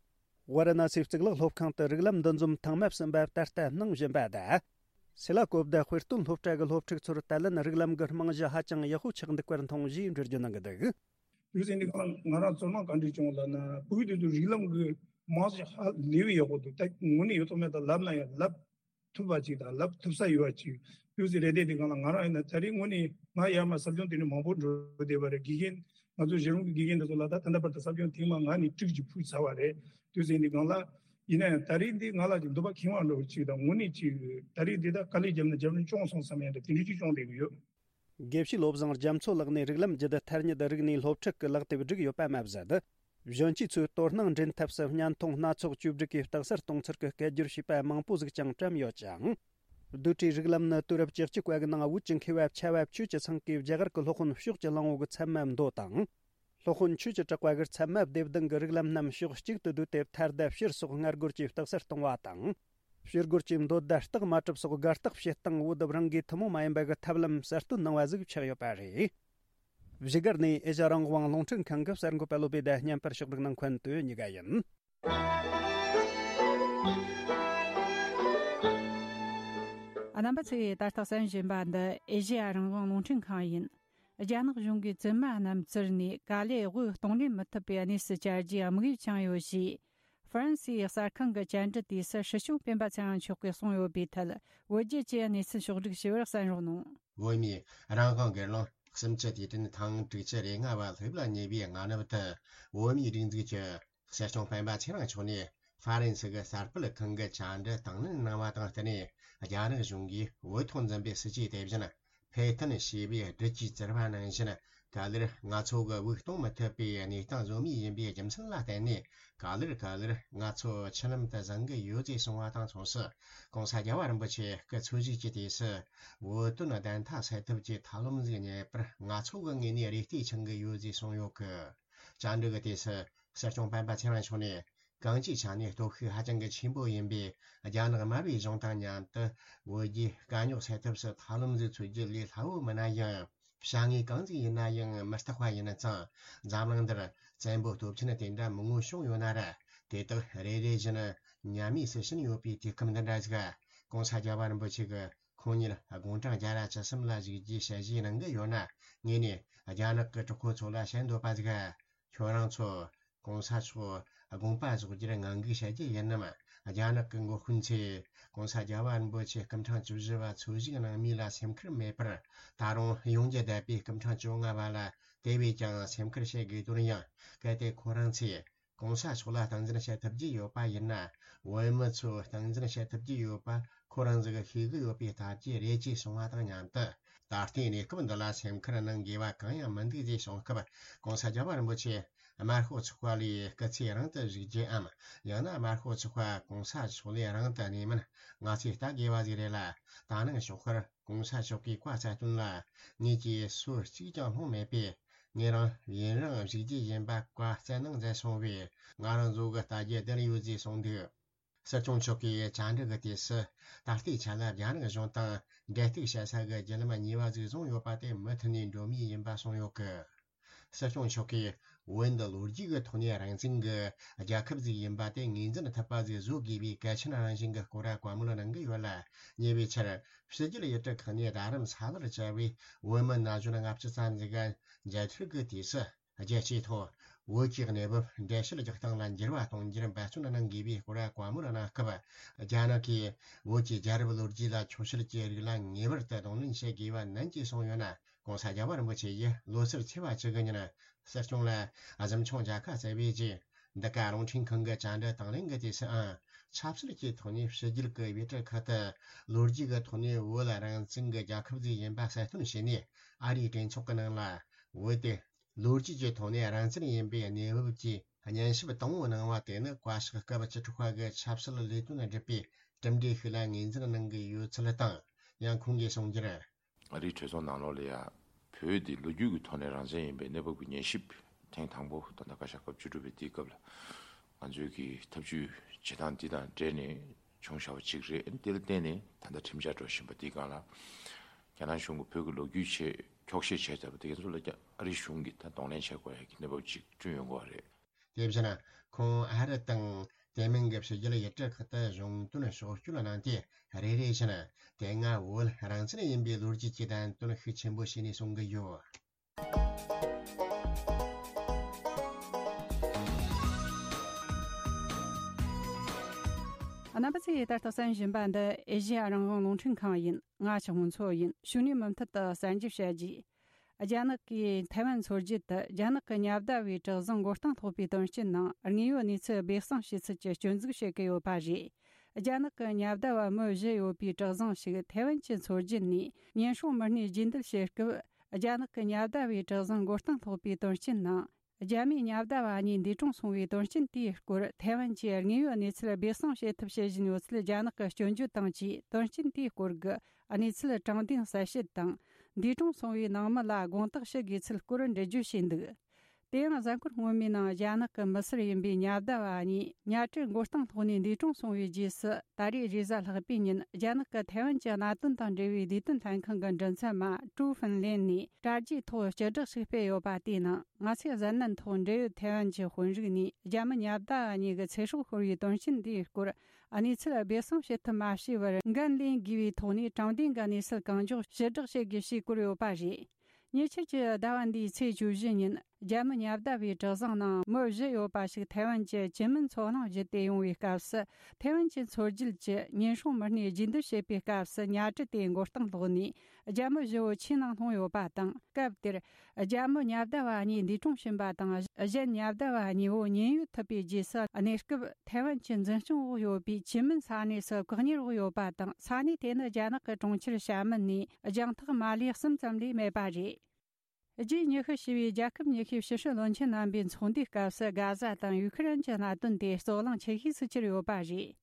ཝཱ་ར་ཎ་སིའི་གཙུག་ལག་སློབ་ཁང་དུ་རིགས་ལམ་འདུ་འཛོམས་ཐེངས་མ་གསུམ་པ་ད་ལྟ་གནང་བཞིན་པ་དང་། སེ་ལ་ཀོབ་དང་དཔེ་སྟོན་སློབ་གྲྭ་གི་སློབ་ཕྲུག་ཚོར་ད་ལན་རིགས་ལམ་གྱི་རྨང་གཞི་ཧ་ཅང་ཡག་པོ་ཆགས་འདུག་པར་མཐོང་ཞེས་འགྲེལ་བརྗོད་གནང་གི་འདུག། དུས་ཚོད་འདི་གང་ང་རང་ཚོར་སྣང་ག་འདྲ་བྱུང་ལབ་ན། བོད་དུས་ཚོད་རིགས་ལམ་གྱི་རྨང་གཞི་ཧ་ལས་པའི་ཡག་པོ་འདུག། ད་དངོས་གནས་ཡོད་ཐོག་མེད་དང་ལབ་ན་ཡང་ལབ་ཐུབ་པ་ཅིག་དང་ལབ་ཐུབ་ས་ཡོད་པ་ཅིག་དུས་ཚོད་རེ་ལྡན་འདི་གང་ལ་ང་རང་ཡིན་ན་ད་རེས་དངོས་གནས་ང་ཡར་མར་ཟབ་སྦྱོང་དེ་འདྲ་མང་པོ་འགྲོ་བསྡད་པ་རེད། དགེ་རྒན་ང་ཚོ་གཞི་རིམ་གྱི་དགེ་རྒན་འདི་ཚོ་ལ་ད་ད་ལྟ་བར་དུ་ཟབ་སྦྱོང་ཐེངས་མ་ལྔ་ནས་དྲུག་ཅིག་ཕུལ་ཚར་བ་རེད། དུས་ཚོད་འདི་གང་ལ་ཡིན་ན་ཡང་ད་རེས་འདི་ང་ལ་ཅིག་འདོད་པ་ཁེངས་པ་འདྲ་བོ་ཅིག་དང་། དངོས་གནས་ཅིག་ད་རེས་འདི་ད་དཀའ་ལས་བརྒྱབ་ན་བརྒྱབ་ན་སྐྱོང་སོང་བསམ་ཡ་འདྲ་དེ་འདྲ་ཅིག་སྐྱོང་བསྡད་ཀྱི་ཡོད། དགེ་བཤེས་བློ་བཟང་རྒྱ་མཚོ་ལགས་ནས་རིགས་ལམ་བརྒྱུད་ཐ་སྙད་རིག་གནས་སློབ་ཁྲིད་ཀྱི་ལག་དེབ་བསྒྲིགས་ཡོད་པ་མ་ཟད། གཞོན་སྐྱེས་ཚོས་དོ་སྣང་འདྲེན་ཐབས་སུ་བརྙན་ཐུང་སྣ་ཚོགས་བཅོས་སྒྲིག་གིས་རྟགས་གསལ་གཏོང་ཚུལ་གྱི་སྐད་སྒྱུར་བྱས་པ་མང་པོ་ཟིག་ཀྱང་བཀྲམ་ཡོད་ཅིང་། རྡོ་གྲྭའི་རིགས་ལམ་ནི་དུས་རབས་བཅུ་གཅིག་པ་གི་ནང་བོད་ཀྱི་མཁས་པ་ཆེ་བ་ཆོས་ཀྱི་ཚང་གིས་རྒྱ་གར་གྱི་སློབ་དཔོན་ཕྱོགས་ཀྱི་གླང་པོ་གི་ཚད་མ་མདོ་དང་། སློབ་དཔོན་ཆོས་ཀྱི་གྲགས་པ་གིས་ཚད་མ་སྡེ་བདུན་གྱི་རིགས་ལམ་རྣམས་ཕྱོགས་གཅིག་ཏུ་བསྡུས་ཏེ། མཐར་དང་ཕྱིར་སོགས་སྔ་རྒོལ་གྱིས་རྟགས་གསལ་གཏོང་བ་དང་། ཕྱིར་རྒོལ་གྱིས་མདོ་དང་རྟགས་མ་གྲུབ་སོགས་དགག་རྟགས་བྱེད་སྟངས་བོད་རང་གིས་ཐུན་མོང་མ་ཡིན་པ་གི་ཐབས་ལམ་གསར་གཏོད་གནང་བ་ཟིག་ཆགས་ཡོད་པ་རེད། བཞུགས་སྒར་ནས་ཨེ་ཤ་རང་དབང་རླུང་འཕྲིན་ཁང་གི་གསར་འགོད་པ་བློ་བྷེ་དང་བརྙན་པར་ཕྱོགས་སྒྲིག་གནང་མཁན་དོན་གཉིས་ཀ་ཡིན། རྣམ་པ་ཚོས་ད་ལྟ་གསན་བཞིན་པ་འདི་ཨེ་ཤེ་ཡ་རང་དབང་རླུང་འཕྲིན་ཁང་ཡིན། རྒྱ་ནག་གཞུང་གིས་བཙུན་མ་རྣམས་བཙིར་ནས་དཀའ་ལས་དབུགས་གཏོང་ལེན་མི་ཐུབ་པའི་གནས་སུ་གྱར་རྒྱུའི་དམིགས་ཡུལ་འཆང་ཡོད་ཞེས། ཧྥ་རན་སིའི་གསར་ཁང་གི་བཅར་འདྲི་དུས་སུ་སྲིད་སྐྱོང་སྤེན་པ་ཚེ་རིང་མཆོག་གིས་གསུངས་ཡོད་པའི་ཐད། བོད་བརྒྱུད་ཀྱི་གནས་ཚུལ་ཕྱོགས་སྒྲིག་ཞུ་བར་གསན་རོགས་གནང་། བོད་མིའི་རང་དབང་སྒེར་ལངས་སུམ་བཅུ་དུས་དྲན་ཐེངས་དྲུག་ཅུ་རེ་ལྔ་བ་སླེབས་ལ་ཉེ་བའི་སྔ་ནུབ་དུ། བོད་མིའི་སྒྲིག་འཛུགས་ཀྱི་སྲིད་སྐྱོང་སྤེན་པ་ཚེ་རིང་མཆོག་ནས་ཧྥ་རན་སི་གི་གསར་སྤེལ་ཁང་གི་བཅར་འདྲི་དང་ལེན་གནང་བ་དང་བསྟུན་ནས། རྒྱ་ནག་གཞུང་གིས་བོད་ཐོག་འཛིན་པའི་སྲིད་ཇུས་དེ་བཞིན་ཕེ་ཐན་ཞེས་པའི་སྦྲུལ་གྱིས་བཙིར་བ་ནང་བཞིན། ག་ལེར་ང་ཚོ་གི་དབུགས་གཏོང་མི་ཐུབ་པའི་གནས་སྟངས་བཟོ་མུས་ཡིན་པའི་རྒྱུ་མཚན་ལ་བརྟེན་ནས། ག་ལེར་ག་ལེར་ང་ཚོ་ཆུ་ལམ་དུ་བཟང་གི་ཡོད་ཅེས་གསུངས་པ་དང་མཚུངས་སུ། ྋགོང་ས་རྒྱལ་བ་རིན་པོ་ཆེ་སྐུ་འཚོ་བཞུགས་ཀྱི་དུས་སུ་བོད་དོན་བདེན་མཐའ་གསལ་ཐབས་ཀྱི་ཐབས་ལམ་ཟིག་རྙེད་པར་ང་ཚོ་གི་ངོས་ནས་རེ་ལྟོས་འཆང་གི་ཡོད་ཅེས་གསུངས་ཡོད་གི། བཅར་འདྲི་གི་དུས་སུ་སྲིད་སྐྱོང་སྤེན་པ་ཚེ་རིང་མཆོག་ནས། གང་ཅིའི་ཆ་ནས་སྟོབས་ཤུགས་ཧ་ཅང་གི་ཆེན་པོ་ཡིན་པས། རྒྱ་ནག་དམར་པོའི་གཞུང་དང་མཉམ་དུ་བོད་རྒྱའི་དཀའ་རྙོག་སེལ་ཐབས་སུ་ཐབས་ལམ་ཟིག་འཚོལ་རྒྱུ་ལས་སླ་བོ་མིན་ན་ཡང་། བྱ་དངོས་གང་ཟིག་ཡིན་ན་ཡང་མི་རྟག་པ་ཡིན་ཙང་། འཛམ་གླིང་འདིར་བཙན་པོ་སྟོབས་ཆེན་དེ་འདྲ་མང་བོ་བྱུང་ཡོད་ན་ར། དེ་དག་རེ་རེ་བཞིན་ཉམས་དམས་སུ་ཕྱིན་ཡོད་པའི་དུས་སྐབས་འདི་འདྲ་ཟིག། ྋགོང་ས་རྒྱལ་བ་རིན་པོ་ཆེ་གི་ཁོང་ཉིད་དགུང་གྲངས་བརྒྱ་དང་བཅུ་གསུམ་ལ་བཞུགས་རྒྱུའི་ཞལ་བཞེས་གནང་གི་ཡོད་ན། ངས་ནས་རྒྱ་ནག་གི་གྲོགས་པོ་ཚོ་ལ་བཤད་འདོད་པ་ཟིག། ཁྱོད་རང་ཚོ་ྋགོང་ས་མཆོག་དགོངས་པ་རྫོགས་རྒྱུར་ངང་སྒུག་བྱ་རྒྱུ་ཡིན་ནམ། རྒྱ་ནག་གི་འགོ་དཔོན་ཚོས་ྋགོང་ས་རྒྱལ་བ་རིན་པོ་ཆེ་སྐུ་ཕྲེང་བཅུ་བཞི་བ་འཚོ་བཞུགས་གནང་མུས་ལ་སེམས་ཁུར་མེད་པར། ད་རུང་ཡོང་རྒྱུ་བསྡད་པའི་སྐུ་ཕྲེང་བཅོ་ལྔ་བ་ལ་དེ་བས་ཀྱང་སེམས་ཁུར་བྱེད་དགོས་དོན་ཡང་། གལ་ཏེ་ཁོ་རང་ཚོས་ྋགོང་ས་མཆོག་ལ་སྟངས་འཛིན་བྱེད་ཐུབ་ཀྱི་ཡོད་པ་ཡིན་ན། བོད་མི་ཚོས་སྟངས་འཛིན་བྱེད་ཐུབ་ཀྱི་ཡོད་པ་ཁོ་རང་ཚོས་ཤེས་ཀྱི་ཡོད་པའི་སྟབས་ཀྱིས་རེད་ཅེས་གསུངས་པ་དང་མཉམ་དུ། ད་ལྟའི་གནས་སྐབས་འདི་ལ་སེམས་ཁུར་གནང་དགོས་པ་གང་ཡང་མི་འདུག་ཅེས་གསུངས་སྐབས། ྋགོང་ས་རྒྱལ་བ་རིན་པོ་ཆེ་དམར་ཤོག་ཚོགས་པ་ལས་སྐུ་ཚེ་རིང་དུ་བཞུགས་རྒྱུའམ། ཡང་ན་དམར་ཤོག་ཚོགས་པ་ྋགོང་ས་མཆོག་ལས་རིང་དུ་གནས་མིན་ང་ཚོས་ལྟ་དགོས་པ་ཟིག་རེད་ལ། ད་ནངས་ཞོགས་ཁར་ྋགོང་ས་མཆོག་གི་བཀའ་སྩལ་དོན་ལ་ངེད་ཀྱིས་སུ་གཅིག་ཀྱང་སློང་མེད་པས། ངེད་རང་ཡུན་རིང་བཞུགས་རྒྱུ་ཡིན་པ་བཀའ་སྩལ་གནང་མཛད་སོང་བས། ང་རང་ཚོ་གི་ལྟ་རྒྱུ་བསྡད་ཡོད་ཅེས་གསུངས་འདུག། སྲིད་སྐྱོང་མཆོག་གིས་བཅར་འདྲི་གི་དུས་སུ། ད་ལྟའི་ཆ་ལ་རྒྱ་ནག་གཞུང་དང་འབྲེལ་གཏུག་བྱེད་ས་གི་བརྒྱུད་ལམ་གཉིས་པ་ཟིག་བཟུང་ཡོད་པ་དེ་མུ་མཐུད་ནས་འགྲོ་མུས་ཡིན་པ་གསུངས་ཡོད་གི། སྲིད་སྐྱོང་མཆོག་གིས་བོད་འདི་ལོ་རྒྱུས་ཀྱི་ཐོག་ནས་རང་བཙན་གྱི་རྒྱལ་ཁབ་ཟིག་ཡིན་པ་དེ་ངོས་འཛིན་ཐུབ་པ་ཟིག་བཟོ་དགོས་པའི་གལ་ཆེན་རང་བཞིན་གྱི་སྐོར་བཀའ་མོལ་གནང་གི་ཡོད་ལ། ཉེ་བའི་ཆར་ཕྱི་རྒྱལ་ཡུལ་གྲུ་ཁག་ནས་རྡ་རམ་ས་ལར་བཅར་བའི་བོད་མི་ན་གཞོན་ལྔ་བཅུ་ཙམ་ཟིག་ག་མཇལ་འཕྲད་ཀྱི་དུས་སུ། རྒྱལ་སྤྱིའི་ཐོག་བོད་ཀྱི་གནས་བབ་འགྲེལ་བཤད་རྒྱག་སྟངས་ལ་འགྱུར་བ་གཏོང་རྒྱུར་འབད་བརྩོན་གནང་དགོས་པའི་སྐོར་བཀའ་མོལ་གནང་སྐབས། རྒྱ་ནག་གིས་བོད་ཀྱི་རྒྱལ་རབས་ལོ་རྒྱུས་ལ་ཆོག་ཤེས་ཀྱི་རིགས་ལ་ངེས་པར་དུ་གདོང་ལེན་བྱེད་དགོས་པ་ནན་གྱིས་གསུངས་ཡོད་ན། ྋགོང་ས་རྒྱལ་བ་རིན་པོ་ཆེ་ཡིས་ལོ་སར་ཚེས་པ་བཅུ་དགུ་ཉིན་སྲིད་སྐྱོང་ལ་གཟིམ་ཆུང་མཇལ་ཁ་བསྩལ་བའི་རྗེས། འདི་ག་རླུང་འཕྲིན་ཁང་གི་བཅར་འདྲི་དང་ལེན་གྱི་དུས་སུའང་། ཆབ་སྲིད་ཀྱི་ཐོག་ནས་ཕྱི་རྒྱལ་གྱི་ཡུལ་གྲུ་ཁག་ཏུ་ལོ་རྒྱུས་ཀྱི་ཐོག་ནས་བོད་ལ་རང་བཙན་གྱི་རྒྱལ་ཁབ་ཅིག་ཡིན་པ་གསལ་སྟོན་བྱས་ནས། ཨ་རིའི་གྲོས་ཚོགས་ཀྱི་ནང་ལ་བོད་དེ་ལོ་རྒྱུས་ཀྱི་ཐོག་ནས་རང་བཙན་ཡིན་པའི་གནས་བབ་ཀྱི་སྙན་ཞུ་དང་པོ་གནང་བ་དེ་ནི་བཀའ་ཤག་སྐབས་བཅུ་དྲུག་པ་གི་ཆབ་སྲིད་ལས་དོན་སྒྲུབ་པའི་གྲུབ་འབྲས་ཤིག་ལ་ངོས་འཛིན་གནང་གི་ཡོད་ཚུལ་དང་། ཡང་ཁོང་གིས་གསུངས་རྒྱུར། ཨ་རིའི་གྲོས་ཚོགས་ནང་ལོགས་ལ་ཡང་བོད་འདི་ལོ་རྒྱུས་ཀྱི་ཐོག་ནས་རང་བཙན་ཡིན་པའི་གནས་བབ་ཀྱི་ཉན་ཞིབ་ཐེངས་དང་པོ་ད་ལྟ་བཀའ་ཤག་སྐབས་བཅུ་དྲུག་པའི་དེའི་སྐབས་ལ་ང་ཚོའི་གི་ཐབས་ཇུས་བྱེད་སྟངས་འདི་དང་འབྲེལ་ནས་བྱུང་བཞག་པ་གཅིག་རེད། དེ་ལ་བརྟེན་ནས་ད་ལྟ་ཁྲིམས་འཆར་འགྲོ་བཞིན་པ་འདིའི་སྒང་ལ་རྒྱ་ནག་གཞུང་གིས་བོད་ཀྱི་ལོ་རྒྱུས་ཆེད་འཁྱོག་བཤད་བྱས་ཚར་བ་དེ་ཚོ་ལ་ཀྱང་ཨ་རིའི་གཞུང་གིས་ད་གདོང་ལེན་བྱེད་དགོས་ཡ་གི་གནས་བབ་ཅིག་བསྐྲུན་ཡོང་གི་ཡོད་རེད། དེ་བཞིན་ཁོང་ཨ་རི་དང་དེ་མིན་གྱི་ཕྱི་རྒྱལ་ཡུལ་གྲུ་ཁག་ཏུ་གཞུང་དོན་ཕྱོགས་བསྐྱོད་གནང་སྟེ། རེ་རེ་བཞིན་དེ་སྔ་བོད་རང་བཙན་ཡིན་པའི་ལོ་རྒྱུས་ཀྱི་བསྟན་དོན་ཤུགས་ཆེན་པོ་བྱས་ནས་གསུང་གི་ཡོད། རྣམ་པ་ཚོས་ད་ལྟ་གསན་བཞིན་པ་འདི་ཨེ་ཤེ་ཡ་རང་དབང་རླུང་འཕྲིན་ཁང་ཡིན། ང་ཆུ་མོ་མཚོ་ཡིན། ཕྱི་ནས་མུ་མཐུད་དུ་གསར་འགྱུར་བཤད་རྒྱུ། རྒྱ་ནག་གིས་ཐའེ་ཝན་འཚོལ་རྒྱུ་དེ་རྒྱ་ནག་གི་ཉ་ཟླ་བའི་གྲུ་གཟིངས་མགོ་རྟིང་སློག་པའི་དོན་རྐྱེན་ནང་དངོས་ཡོད་གནས་ཚུལ་སྦས་གསང་བྱེད་ཚུལ་གྱི་སྐྱོན་འཛུགས་བྱེད་ཀྱི་ཡོད་པ་རེད། རྒྱ་ནག་གི་ཉ་ཟླ་བ་མི་བཞི་ཡོད་པའི་གྲུ་གཟིངས་ཤིག་ཐའེ་ཝན་གྱིས་འཚོལ་རྒྱུ་ནས་ཉེན་སྲུང་མི་སྣས་རྗེས་འདེད་བྱེད་སྐབས། རྒྱ་ནག་གི་ཉ་ཟླ་བའི་གྲུ་གཟིངས་མགོ་རྟིང་སློག་པའི་དོན་རྐྱེན་ནང་། རྒྱ་མིའི་ཉ་ཟླ་བ་གཉིས་འདས་གྲོངས་སོང་བའི་དོན་རྐྱེན་དེའི་སྐོར་ཐའེ་ཝན་གྱིས་དངོས་ཡོད་གནས་ཚུལ་སྦས་གསང་བྱེད་ཐབས་བྱེད་བཞིན་ཡོད་ཚུལ་རྒྱ་ནག་གིས་སྐྱོན་བརྗོད་དང་བཅས། དོན་རྐྱེན་དེའི་སྐོར་གྱི་གནས་ཚུལ་དྲང་བདེན་གསལ་བཤད་དང་། འདས་གྲོངས་སོང་བའི་ནང་མི་ལ་དགོངས་དག་ཞུ་དགོས་ཚུལ་སྐོར་འགྲེལ་བརྗོད་བྱས་འདུག། དེ་ཡང་གཟའ་འཁོར་སྔོན་མའི་ནང་རྒྱ་ནག་གི་མི་སེར་ཡིན་པའི་ཉ་ཟླ་བ་གཉིས་ཉ་གྲུ་མགོ་རྟིང་སློག་ནས་འདས་གྲོངས་སོང་བའི་རྗེས་སུ། ད་རེས་རེས་གཟའ་ལྷག་པའི་ཉིན་རྒྱ་ནག་གི་ཐའེ་ཝན་གྱི་གནད་དོན་དང་འབྲེལ་བའི་བདེ་དོན་ལྷན་ཁང་གི་མགྲིན་ཚབ་མ་ཀྲུའུ་ཧྥིན་ལེན་ནས་དྲ་རྒྱའི་ཐོག་སྤྱི་བསྒྲགས་ཤིག་སྤེལ་ཡོད་པ་དེའི་ནང་། ང་ཚོས་གཟའ་ནན་ཐོག་འབྲེལ་ཡོད་ཐའེ་ཝན་གྱི་དཔོན་རིགས་ནས་རྒྱ་མི་ཉ་ཟླ་བ་གཉིས་ཀྱི་ཚེ་སྲོག་ཤོར་བའི་དོན་རྐྱེན་འདིའི་སྐོར་གནས་ཚུལ་སྦས་གསང་བྱེད་ཐབས་མ་བྱས་པར། འགན་ལེན་དགོས་པའི་ཐོག་ནས་དྲང་བདེན་གྱི་གནས་ཚུལ་གང་མགྱོགས་ཕྱིར་བསྒྲགས་བྱེད་དགོས་ཞེས་བཀོད་ཡོད་པ་རེད། ཉེ་ཆར་གྱི་ཟླ་བ་འདིའི་ཚེས་བཅུ་བཞི་ཉིན། རྒྱ་མི་ཉ་བརྡ་པའི་གྲུ་གཟིངས་ནང་མི་བཞི་ཡོད་པ་ཞིག་ཐའེ་ཝན་གྱི་ཅིན་མིན་མཚོ་གླང་བརྒྱུད་དེ་ཡོང་བའི་སྐབས་སུ། ཐའེ་ཝན་གྱི་མཚོ་རྒྱུད་ཀྱི་ཉེན་སྲུང་མི་སྣས་རྒྱུན་སྡོད་བྱེད་པའི་སྐབས་སུ་ཉ་གྲུ་དེའི་མགོ་རྟིང་སློག་ནས་རྒྱ་མི་བཞི་བོ་ཆུའི་ནང་ལྷུང་ཡོད་པ་དང་། སྐབས་དེར་རྒྱ་མི་ཉ་བརྡ་པ་གཉིས་འདས་གྲོངས་ཕྱིན་པ་དང་། གཞན་ཉ་བརྡ་པ་གཉིས་པོ་ཉེན་གཡོལ་ཐུབ་པའི་རྗེས་སུ། གནས་སྐབས་ཐའེ་ཝན་གྱི་འཛིན་སྐྱོང་འོག་ཡོད་པའི་ཅིན་མིན་ས་གནས་སུ་བཀག་ཉར་འོག་ཡོད་པ་དང་། ས་གནས་དེ་ནི་རྒྱ་ནག་གི་གྲོང་ཁྱེར་ཞྭ་མིན་ནས་རྒྱང་ཐག་མ་ལས་གསུམ་ཙམ་ལས་མེད་པ་རེད། རྗེས་ཉི་ཤུ་ཞེས་པའི་རྒྱལ་ཁབ་ཉི་ཤུའི་ཕྱི་སྲིད་བློན་ཆེན་རྣམ་པའི་ཚོགས་འདུའི་སྐབས་སུ། གྷ་ཟ་དང་ཡུ་ཁི་རན་གྱི་གནད་དོན་དེ་རྩོད་གླེང་ཆེ་ཤོས་སུ་གྱུར་ཡོད་པ་རེད།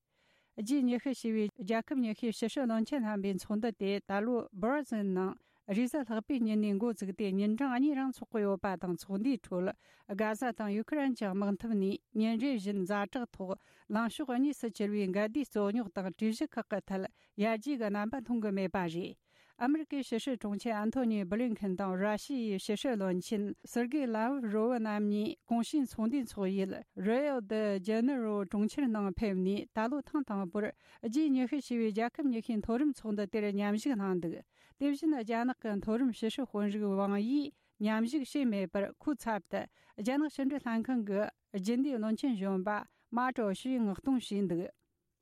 རྗེས་ཉི་ཤུ་ཞེས་པའི་རྒྱལ་ཁབ་ཉི་ཤུའི་ཕྱི་སྲིད་བློན་ཆེན་རྣམ་པའི་ཚོགས་འདུ་དེ་ད་ལོ་སྦར་ཟིལ་ནང་རེས་གཟའ་ལྷག་པའི་ཉིན་ནས་འགོ་བཙུགས་ཏེ། ཉིན་གྲངས་གཉིས་རིང་འཚོགས་ཀྱི་ཡོད་པ་དང་། ཚོགས་འདུའི་ཁྲོད་གྷ་ཟ་དང་ཡུ་ཁི་རན་གྱི་དམག་འཐབ་ནས་ཉིན་རེ་བཞིན་ཛ་དྲག་ཐོག་ལངས་ཕྱོགས་གཉིས་སུ་གྱུར་བའི་འགལ་ཟླའི་རྩོད་རྙོག་དང་གྲོས་གཞི་ཁག་གི་ཐད་ཡར་རྒྱས་ཀྱི་རྣམ་པ་མཐོང་གི་མེད་པ་རེད། ཨ་མི་རི་ཀའི་ཕྱི་སྲིད་དྲུང་ཆེ་ཨན་ཐོ་ནི་བྷི་ལིན་ཁིན་དང་། ར་ཤི་ཡའི་ཕྱི་སྲིད་བློན་ཆེན་སེར་གེ་ལ་ཝ་རོ་བ་རྣམ་གཉིས་གོང་ཞུས་ཚོགས་འདུའི་འཚོགས་ཡུལ་རི་ཨོ་ད་ཇེ་ནེ་རོ་གྲོང་ཁྱེར་ནང་ཕེབས་ནས། ད་ལོ་ཐེངས་དང་པོར་ཇི་ཉི་ཤུ་ཞེས་པའི་རྒྱལ་ཁབ་ཉི་ཤུའི་མཐོ་རིམ་ཚོགས་འདུ་དེར་མཉམ་ཞུགས་གནང་འདུག་དེ་བཞིན་རྒྱ་ནག་གི་མཐོ་རིམ་ཕྱི་སྲིད་དཔོན་རིགས་ཝང་ཡིས་མཉམ་ཞུགས་བྱས་མེད་པར། ཁོའི་ཚབ་ཏུ་རྒྱ་ནག་ཕྱི་འབྲེལ་ལྷན་ཁང་གི་རྒྱུན་ལས་བློན་ཆེན་གཞོན་པ་མ་ཀྲོ་ཞུས་མངགས་གཏོང་བྱས་འདུག་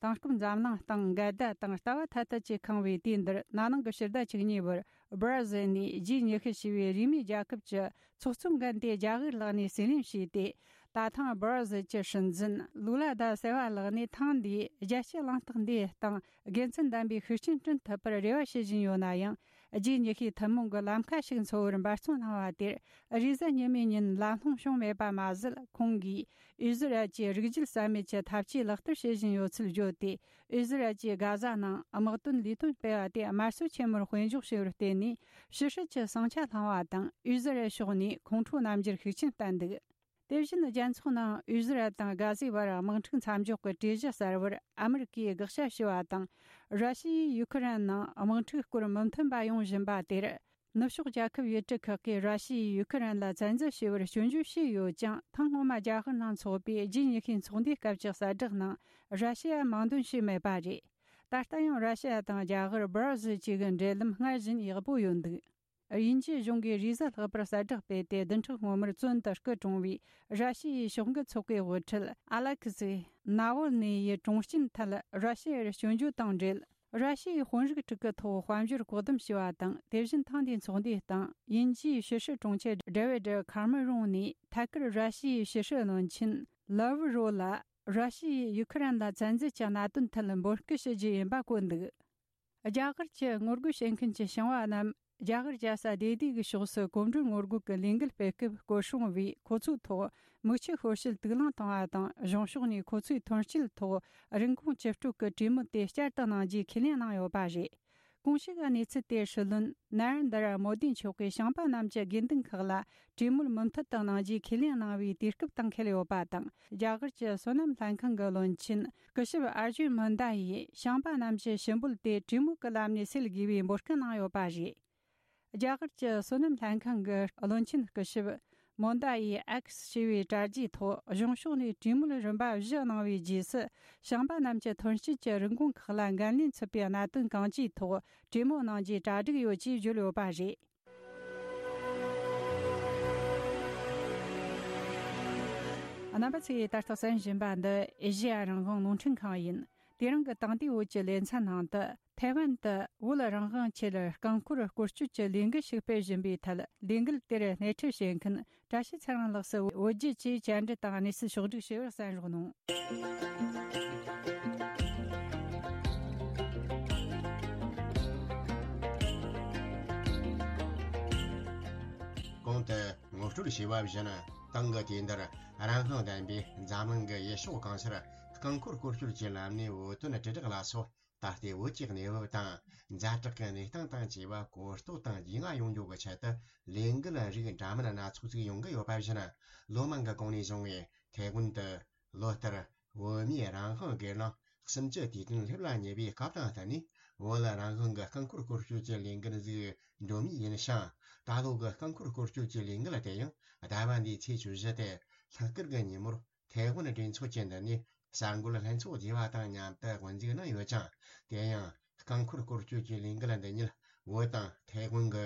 དེང་སྐབས་འཛམ་གླིང་སྟེང་འགལ་ཟླ་དང་ལྟ་བ་ཐ་དད་ཀྱིས་ཁེངས་པའི་དུས་འདིར། ན་ནིང་གི་ཕྱི་ཟླ་བཅུ་གཉིས་པར་སྦར་ཟིལ་ནས་ཇི་ཉི་ཤུ་ཞེས་པའི་རིས་མེད་རྒྱལ་ཁབ་ཀྱི་ཚོགས་གཙོའི་འགན་དེ་རྒྱ་གར་ལག་ནས་གསན་ལེན་བྱས་ཏེ། ད་ཐེངས་སྦར་ཟིལ་གྱི་སྲིད་འཛིན་ལུ་ལ་ད་སེ་བ་ལག་ནས་ཐེངས་འདིའི་རྒྱལ་སྤྱིའི་གླེང་སྟེགས་འདིའི་སྟེང་དགེ་མཚན་ལྡན་པའི་ཤུགས་རྐྱེན་བསྐྲུན་ཐུབ་པར་རེ་བ་བྱེད་བཞིན་ཡོད་ན་ཡང་། ཇི་ཉི་ཤུའི་ཐུན་མོང་གི་ལམ་ཁ་ཞིག་འཚོལ་བར་འབད་བརྩོན་གནང་བ་དེར། རེས་གཟའ་ཉི་མའི་ཉིན་ལམ་ལྷོང་བྱུང་མེད་པ་མ་ཟད། ཁོང་གིས་ཨི་ཟི་རལ་གྱི་རིགས་རྒྱུད་རྩ་མེད་ཀྱི་ཐབས་ཇུས་ལག་བསྟར་བྱེད་བཞིན་ཡོད་ཚུལ་བརྗོད་དེ། ཨི་ཟི་རལ་གྱིས་གྷ་ཟ་ནང་དམག་དོན་ལས་དོན་སྤེལ་བ་དེ་དམར་གསོད་ཆེན་མོར་དཔེ་འཇོག་བྱས་པར་བརྟེན་ནས། ཕྱི་སྲིད་ཀྱི་ཟིང་ཆ་བསླངས་པ་དང་། ཨི་ཟི་རལ་ཕྱོགས་ནས་ཁོང་ཁྲོ་རྣམ་འགྱུར་ཤུགས་ཆེན་བསྟན་འདུག་དེ་བཞིན་རྒྱལ་ཚོགས་ནང་ཨི་ཟི་རལ་དང་གྷ་ཟའི་བར་དམག་འཁྲུག་མཚམས་འཇོག་གི་གྲོས་གཞི་གསར་བར་ཨ་མི་རི་ཀས་དགག་བྱ་ཞུས་པ་དང་། ར་ཤི་ཡས་ཡུ་ཁུ་རེན་ནང་དམག་འཁྲུག་སྐོར་མི་མཐུན་པ་ཡོང་བཞིན་པ་དེར། ནུབ་ཕྱོགས་རྒྱལ་ཁབ་ཡུལ་གྲུ་ཁག་གིས་ར་ཤི་ཡས་ཡུ་ཁུ་རེན་ལ་བཙན་འཛུལ་བྱས་པར་སྐྱོན་བརྗོད་བྱས་ཡོད་ཀྱང་། ཐེངས་སྔོན་མ་རྒྱ་གར་ནང་འཚོགས་པའི་ཇི་ཉི་ཤུའི་ཚོགས་འདུའི་སྐབས་ཀྱི་གསལ་བསྒྲགས་ནང་ར་ཤི་ཡ་མིང་འདོན་བྱས་མེད་པ་རེད། ད་ལྟ་ཡང་ར་ཤི་ཡ་དང་རྒྱ་གར་སྦར་ཟིལ་བཅས་ཀྱི་འབྲེལ་ལམ་སྔར་བཞིན་ཡག་པོ་ཡོད་འདུག་དབྱིན་ཇིའི་གཞུང་གིས་རེས་གཟའ་ལྷག་པར་གསལ་བསྒྲགས་སྤེལ་ཏེ། བདུན་ཕྲག་སྔོན་མར་བཙོན་དུ་སྐུ་གྲོངས་པའི་ར་ཤི་ཡའི་ཕྱོགས་འགལ་ཚོགས་པའི་དབུ་ཁྲིད་ཨ་ལེ་ཁི་སི་ནཱ་ཝལ་ནི་ཡི་གྲོངས་རྐྱེན་ཐད་ར་ཤི་ཡར་སྐྱོན་བརྗོད་དང་འབྲེལ། ར་ཤི་ཡའི་དཔོན་རིགས་དྲུག་གི་ཐོག་དཔལ་འབྱོར་བཀག་སྡོམ་བྱས་པ་དང་། དེ་བཞིན་ཐེངས་འདིའི་ཚོགས་འདུའི་སྟེང་དབྱིན་ཇིའི་ཕྱི་སྲིད་དྲུང་ཆེ་ཌེ་བིད་ཁ་མེ་རོན་ནས་ཐད་ཀར་ར་ཤི་ཡའི་ཕྱི་སྲིད་བློན་ཆེན་ལ་ཝ་རོ་ལ་ར་ཤི་ཡས་ཡུ་ཁུ་རེན་ལ་བཙན་འཛུལ་གྱི་གནད་དོན་ཐད་འབོད་སྐུལ་ཞུ་རྒྱུ་ཡིན་པ་བཀོད་འདུག་རྒྱ་གར་གྱི་ངོ་རྒོལ་བྱེད་མཁན་གྱི་ཞིང་བ་རྣམས་རྒྱ་གར་རྒྱལ་ས་ལྡི་ལི་གི་ཕྱོགས་སུ་གོམ་བགྲོད་ངོ་རྒོལ་གྱི་ལས་འགུལ་སྤེལ་སྐབས་སྐོར་སྲུང་བས་ཁོ་ཚོའི་ཐོག་མིག་ཆུ་ཤོར་བྱེད་དུག་རླངས་བཏང་བ་དང་། གཞུང་ཕྱོགས་ནས་ཁོ་ཚོའི་ཐོན་སྐྱེད་ཐོག་རིན་གོང་ཇི་སྤྲོད་ཀྱི་གྲོས་མོལ་དེ་བསྐྱར་དུ་གནང་རྒྱུའི་ཁས་ལེན་གནང་ཡོད་པ་རེད། གོང་ཞུས་ཀྱི་གནས་ཚུལ་དེ་སྲིད་བློན་ན་རེན་དྲ་མོ་དི་མཆོག་གིས་ཞིང་པ་རྣམས་ཀྱི་དགོས་འདུན་ཁག་ལ་གྲོས་མོལ་མུ་མཐུད་དུ་གནང་རྒྱུའི་ཁས་ལེན་གནང་བའི་དུས་སྐབས་དང་འཁེལ་ཡོད་པ་དང་། རྒྱ་གར་གྱི་སོ་ནམ་ལྷན་ཁང་གི་བློན་ཆེན་སྐུ་ཞབས་ཨར་ཇུན་མོན་དཱ་ཡིས་ཞིང་པ་རྣམས་ཀྱི་ཞུ་འབོད་དེ་གྲོས་མོལ་གྱི་ལམ་ནས་སེལ་དགོས་པའི་འབོད་སྐུལ་གནང་ཡོད་པ་རེད། རྒྱ་གར་གྱི་སོ་ནམ་ལྷན་ཁང་གི་བློན་ཆེན་སྐུ་ཞབས་མོན་དཱ་ཡིས་ཨེགས་ཞེས་པའི་དྲ་རྒྱའི་ཐོག་གཞུང་ཕྱོགས་ནས་གྲོས་མོལ་རིམ་པ་བཞི་གནང་བའི་རྗེས་སུ། ཞིང་པ་རྣམས་ཀྱི་ཐོན་སྐྱེད་ཀྱི་རིན་གོང་ཁག་ལ་འགན་ལེན་ཚུད་པའི་གནད་དོན་གང་ཅིའི་ཐོག་གྲོས་མོལ་གནང་རྒྱུའི་གྲ་སྒྲིག་ཡོད་ཅེས་བརྗོད་ཡོད་པ་རེད། རྣམ་པ་ཚོས་ད་ལྟ་གསན་བཞིན་པ་འདི་ཨེ་ཤེ་ཡ་རང་དབང་རླུང་འཕྲིན་ཁང་ཡིན། དེ་རིང་གི་དེང་དུས་བོད་ཀྱི་ལེ་ཚན་ནང་དུ། ཐའེ་ཝན་དུ་བོད་རང་དབང་ཆེད་རྐང་འཁོར་སྐོར་སྐྱོད་ཀྱི་ལས་འགུལ་ཞིག་སྤེལ་བཞིན་པའི་ཐད། ལས་འགུལ་དེར་སྣེ་ཁྲིད་བྱེད་མཁན་བཀྲ་ཤིས་ཚེ་རིང་ལགས་སུ་བོད་བརྒྱུད་ཀྱིས་བཅར་འདྲི་དང་གནས་ཚུལ་ཕྱོགས་བསྒྲིགས་བྱས་པར་གསན་རོགས་གནང་། གོང་དུ་ངོ་སྤྲོད་བྱས་པ་བཞིན། ཏང་གི་དུས་འདིར་རང་དབང་ལྡན་པའི་འཛམ་གླིང་གི་ཡུལ་ཕྱོགས་གང་སར་རྐང་འཁོར་སྐོར་སྐྱོད་ཀྱི་ལམ་ནས་བོད་དོན་དྲིལ་བསྒྲགས་ལ་སོགས། ད་ལྟའི་བོད་ཀྱི་གནས་བབ་དང་། ཛ་དྲག་གི་གནས་སྟངས་དང་བཅས་པ་གོ་རྟོགས་དང་རྒྱུས་མངའ་ཡོང་རྒྱུ་གི་ཆེད་དུ། ལས་འགུལ་རིགས་འདྲ་མིན་སྣ་ཚོགས་ཅིག་ཡོང་གི་ཡོད་པ་བཞིན། ལོ་མང་གི་གོང་ནས་བཟུང་བའི་ཐའེ་ཝན་དུ་ལོ་ལྟར་བོད་མིའི་རང་དབང་སྒེར་ལངས་གསུམ་བཅུ་དུས་སྟོན་སླེབས་ལ་ཉེ་བའི་སྐབས་དང་བསྟུན་ནས། བོད་ལ་རང་དབང་གི་རྐང་འཁོར་སྐོར་སྐྱོད་ཀྱི་ལས་འགུལ་ཟིག་འགྲོ་མུས་ཡིན་ཞིང་། ད་ལོ་གི་རྐང་འཁོར་སྐོར་སྐྱོད་ཀྱི་ལས་འགུལ་དེ་ཡང་ཟླ་བ་འདིའི་ཚེས་བཅུ་བཞི་སྟེ། ལྷག་དཀར་གྱི་ཉིན་མོར། ཐའེ་ཝན་གྲོས་ཚོགས་ཀྱི་མདུན་ནས་གསར་འགོད་ལྷན་ཚོགས་བརྗེ་བ་དང་མཉམ་དུ་དབུ་འཛུགས་གནང་ཡོད་ཅིང་། དེ་ཡང་རྐང་འཁོར་སྐོར་སྐྱོད་ཀྱི་ལས་འགུལ་འདི་ཉིད་བོད་དང་ཐའེ་ཝན་གྱི་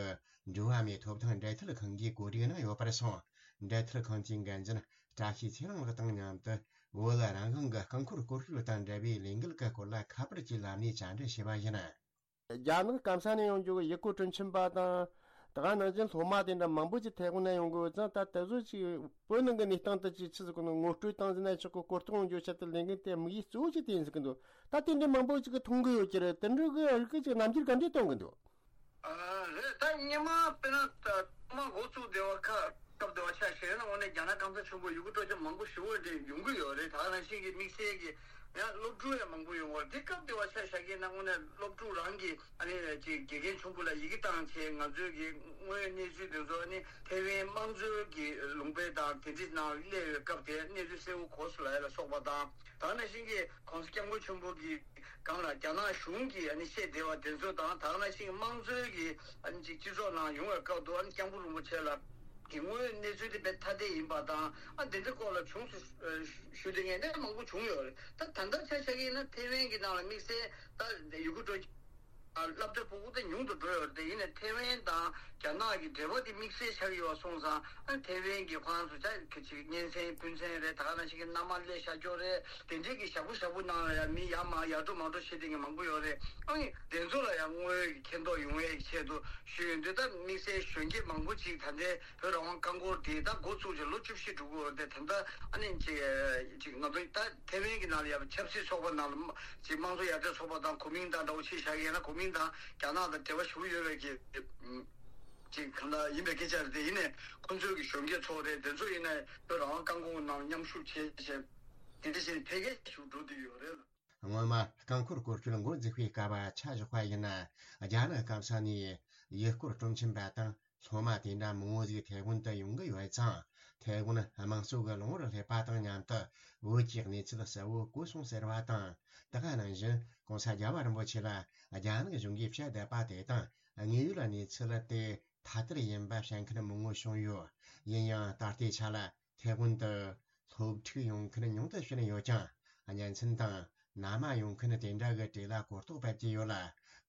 འགྲོ་བ་མིའི་ཐོབ་ཐང་འབྲེལ་མཐུད་ཁང་གིས་གོ་སྒྲིག་གནང་ཡོད་པར་སོང་ འབྲེལ་མཐུད་ཁང་གི་འགན་འཛིན་བཀྲ་ཤིས་ཚེ་རིང་ལགས་དང་མཉམ་དུ། བོད་རང་དབང་གི་རྐང་འཁོར་སྐོར་སྐྱོད་དང་འབྲེལ་བའི་ལས་འགུལ་གྱི་སྐོར་ལ་ཁ་པར་གྱི་ལམ་ནས་བཅར་འདྲི་བྱས་པ་ཡིན། རྒྱ་ནག་སྐམ་ས་ནས་ཡོང་རྒྱུ་གི་ཡུལ་སྐོར་སྤྲོ་འཆམ་པ་དང་། དེ་ག་ནང་བཞིན་སློབ་མ་དེ་འདྲ་མང་པོ་ཅིག་ཐའེ་ཝན་ནས་ཡོང་གི་ཡོད་ཙང་། ད་དེ་ཚོ་ཅིག་བོད་ནང་གི་གནས་སྟངས་དེ་ཅིག་ཆི་ཟིག་གི་ངོ་སྤྲོད་བཏང་ཟིན་ན་ཆོག་གི། གོ་རྟོགས་ཡོང་རྒྱུ་ཆེད་དུ་ལས་འགུལ་དེ་དམིགས་ཡུལ་གཙོ་བོ་ཅིག་དེ་ཡིན་ཟིག་གི་འདུག་ད་དེ་འདྲའི་མང་པོ་ཅིག་གིས་མཐོང་གི་ཡོད་ཀྱི་རེད། དེ་འདྲ་གི་རིགས་ཅིག་རྣམ་འགྱུར་ག་འདྲས་སྟོན་གི་འདུག་ཨ། རེད། ད་སྔོན་མ་དཔེར་ན་ད་ཐོག་མ་འགོ་བཙུགས་བསྡད་པ་ཁ་སྐབས་དེ་བ་ཆ་བཞག་ན། དངོས་གནས་རྒྱ་ནག་སྐམ་ས་ཆེན་པོ་ཡུལ་སྐོར་སྤྲོ་འཆམ་མང་པོ་ཞེ་པོ་དེ་ཡོང་གི་ཡོད་རེད། ད་ག་ནང་བཞིན་གྱི་དམིགས་བསལ་གྱི་ཡང་སློབ་ཕྲུག་ཡང་མང་པོ་ཡོང་བ་རེད། དེ་སྐབས་དེ་བ་ཆ་བཞག་གི་ན་དངོས་གནས་སློབ་ཕྲུག་རང་གི་ཨ་ནི་ཅིག་དགེ་རྒན་ཆུང་པོ་ལ་ཡི་གེ་བཏང་བྱས། ང་ཚོའི་གི་དངོས་ཡོད་གནས་ཚུལ་དེ་ཚོ་ཨ་ནི་ཐའེ་ཝན་དམངས་གཙོའི་གི་ལུང་པ་དང་དེ་འདྲའི་ནང་སླེབས་པའི་སྐབས་དེ་གནས་ཚུལ་གསལ་པོ་གོ་སོང་ལབ་ཡ་ལ་སོགས་པ་དང་། ད་ག་ནང་བཞིན་གྱི་༸གོང་ས་༸སྐྱབས་མགོན་ཆེན་པོ་གི་སྒང་ལ་རྒྱ་ནག་གཞུང་གིས་ཨ་ནི་བཤད་བསྡད་པ་དེ་ཚོ་དང་། ད་ག་ནང་བཞིན་དམངས་གཙོའི་གི་ཨ་ནི་ཅིག་སྤྱི་ཚོགས་ནང་ཡོང་བའི་སྐབས་དུ་ཨ་ནི་སྐྱབས་མགོན་རིན་པོ་ཆེ་ལ་གི་དངོས་ཡོད་གནས་ཚུལ་དེ་དཔེ་ཐ་དད་ཡིན་པ་དང་། ཨ་དེ་འདྲའི་སྐོར་ལ་བྱུང་སོང་ཞུ་དེ་ངས་ནས་མང་པོ་བྱུང་ཡོད་རེད། ད་ད་ལྟ་ཆ་བཞག་གི་ཡིན་ན་ཐའེ་ཝན་གྱི་ནང་ལ་དམིགས་བསལ་ད་ཡུལ་སྐོར་སྤྲོ་སློབ་གྲྭ་ཕྲུ་གུ་དེ་ཉུང་དུ་འགྲོ་ཡོད་རེད། དེ་ཡིན་ནའི་ཐའེ་ཝན་དང་རྒྱ་ནག་གི་འབྲེལ་བ་དེ་དམིགས་བསལ་ཆགས་ཡོད་པ་སོང་ཙང་། ཨ་ཐའེ་ཝན་གྱི་ཁོ་རང་ཚོ་ཅག་གི་ཅིག་གཉེན་ཚན་སྤུན་ཚན་རེད། ད་ག་ནང་བཞིན་གྱི་མནའ་མ་སླེབས་བཞག་ཀྱོག་རེད། དེ་འདྲའི་གི་ཞག་པོ་ཞག་པོ་ནང་ལ་ཡང་མི་ཡར་མར་ཡར་འགྲོ་མར་འགྲོ་བྱེད་མཁན་གྱི་མང་པོ་ཡོད་རེད། ཨ་ནི་དེ་ཚོ་ལ་ཡང་དངོས་ཡོད་ཀྱི་མཁྱེན་རྟོགས་ཡོང་ཡས་ཀྱི་ཆེད་དུ་ཞུས་ཡོད་འདུག་ད་དམིགས་བསལ་གཞོན་སྐྱེས་མང་པོ་ཅིག་ད་ལྟའི་བོད་རང་དབང་རྐང་འཁོར་དེ་ད་འགོ་བཙུགས་བྱས་ལོ་བཅུ་བཞི་འགྲོ་གི་ཡོད་རེད། དེ་ད་ལྟ་ཨ་ནི་ཅིག་ཅིག་ང་ཚོ་ད་ཐའེ་ཝན་གྱི་ནང་ལ་ཡང་ཆབ་སྲིད་ཚོགས་པ་ནང་ལ་ཅིག་དམངས་གཙོ་ཡར་ཐོན་ཚོགས་པ་དང་གོ་མིན་ཏང་འདྲ་བོ་ཅིག་བཞག་ཡོད་ན། གོ་མིན་ཏང་རྒྱ་ནག་དང་འབྲེལ་བ་ཞུ་གི་ཡོད་པའི་གི་ཅིག་གང་ལྟར་ཡིན་པའི་སྐད་ཆ་རེད། དེ་ཡིན་ནའི་ཁོང་ཚོའི་གི་གཞོན་སྐྱེས་ཚོ་རེད། དེ་ཚོ་ཡིན་ནའི་བོད་རང་དབང་རྐང་འཁོར་ནང་མཉམ་ཞུགས་བྱས་བྱས་དེ་འདྲ་བྱས་འཕེལ་རྒྱས་ཤུགས་འགྲོ་བསྡད་ཡོད་རེད། སྔོན་མ་རྐང་འཁོར་སྐོར་སྐྱོད་འགོ་འཛུགས་པའི་སྐབས་ཆ་བཞག་པ་ཡིན་ན། རྒྱ་ནག་སྐམ་ས་ནས་ཡུལ་སྐོར་སྤྲོ་འཆམ་པ་དང་སློབ་མ་དེ་འདྲ་མང་བོ་ཟིག་ཐའེ་ཝན་དུ་ཡོང་གི་ཡོད་ཙང་། ཐའེ་ཝན་དམངས་གཙོ་གི་ལམ་བར་སླེབས་པ་དང་མཉམ་དུ་བོད་ཀྱི་གནས་ཚུལ་གསལ་བོ་གོ་སོང་ཟེར་བ་དང་། དེ་ག་ནང་བཞིན་༸གོང་ས་༸རྒྱལ་བ་རིན་པོ་ཆེ་ལ་རྒྱ་ནག་གཞུང་གིས་བཤད་བསྡད་པ་དེ་དང་དངོས་ཡོད་གནས་ཚུལ་དེ་ཐ་དད་ཡིན་པ་བཤད་མཁན་མང་བོ་བྱུང་ཡོད། ཡིན་ཡང་ད་ལྟའི་ཆ་ལ་ཐའེ་ཝན་དུ་སློབ་ཕྲུག་ཡོང་མཁན་ཉུང་དུ་ཕྱིན་ཡོད་ཀྱང་། གཉེན་ཚན་དང་མནའ་མ་ཡོང་མཁན་དེ་འདྲ་གི་གྲས་ལ་གོ་རྟོགས་སྤེལ་གྱི་ཡོད་ལ།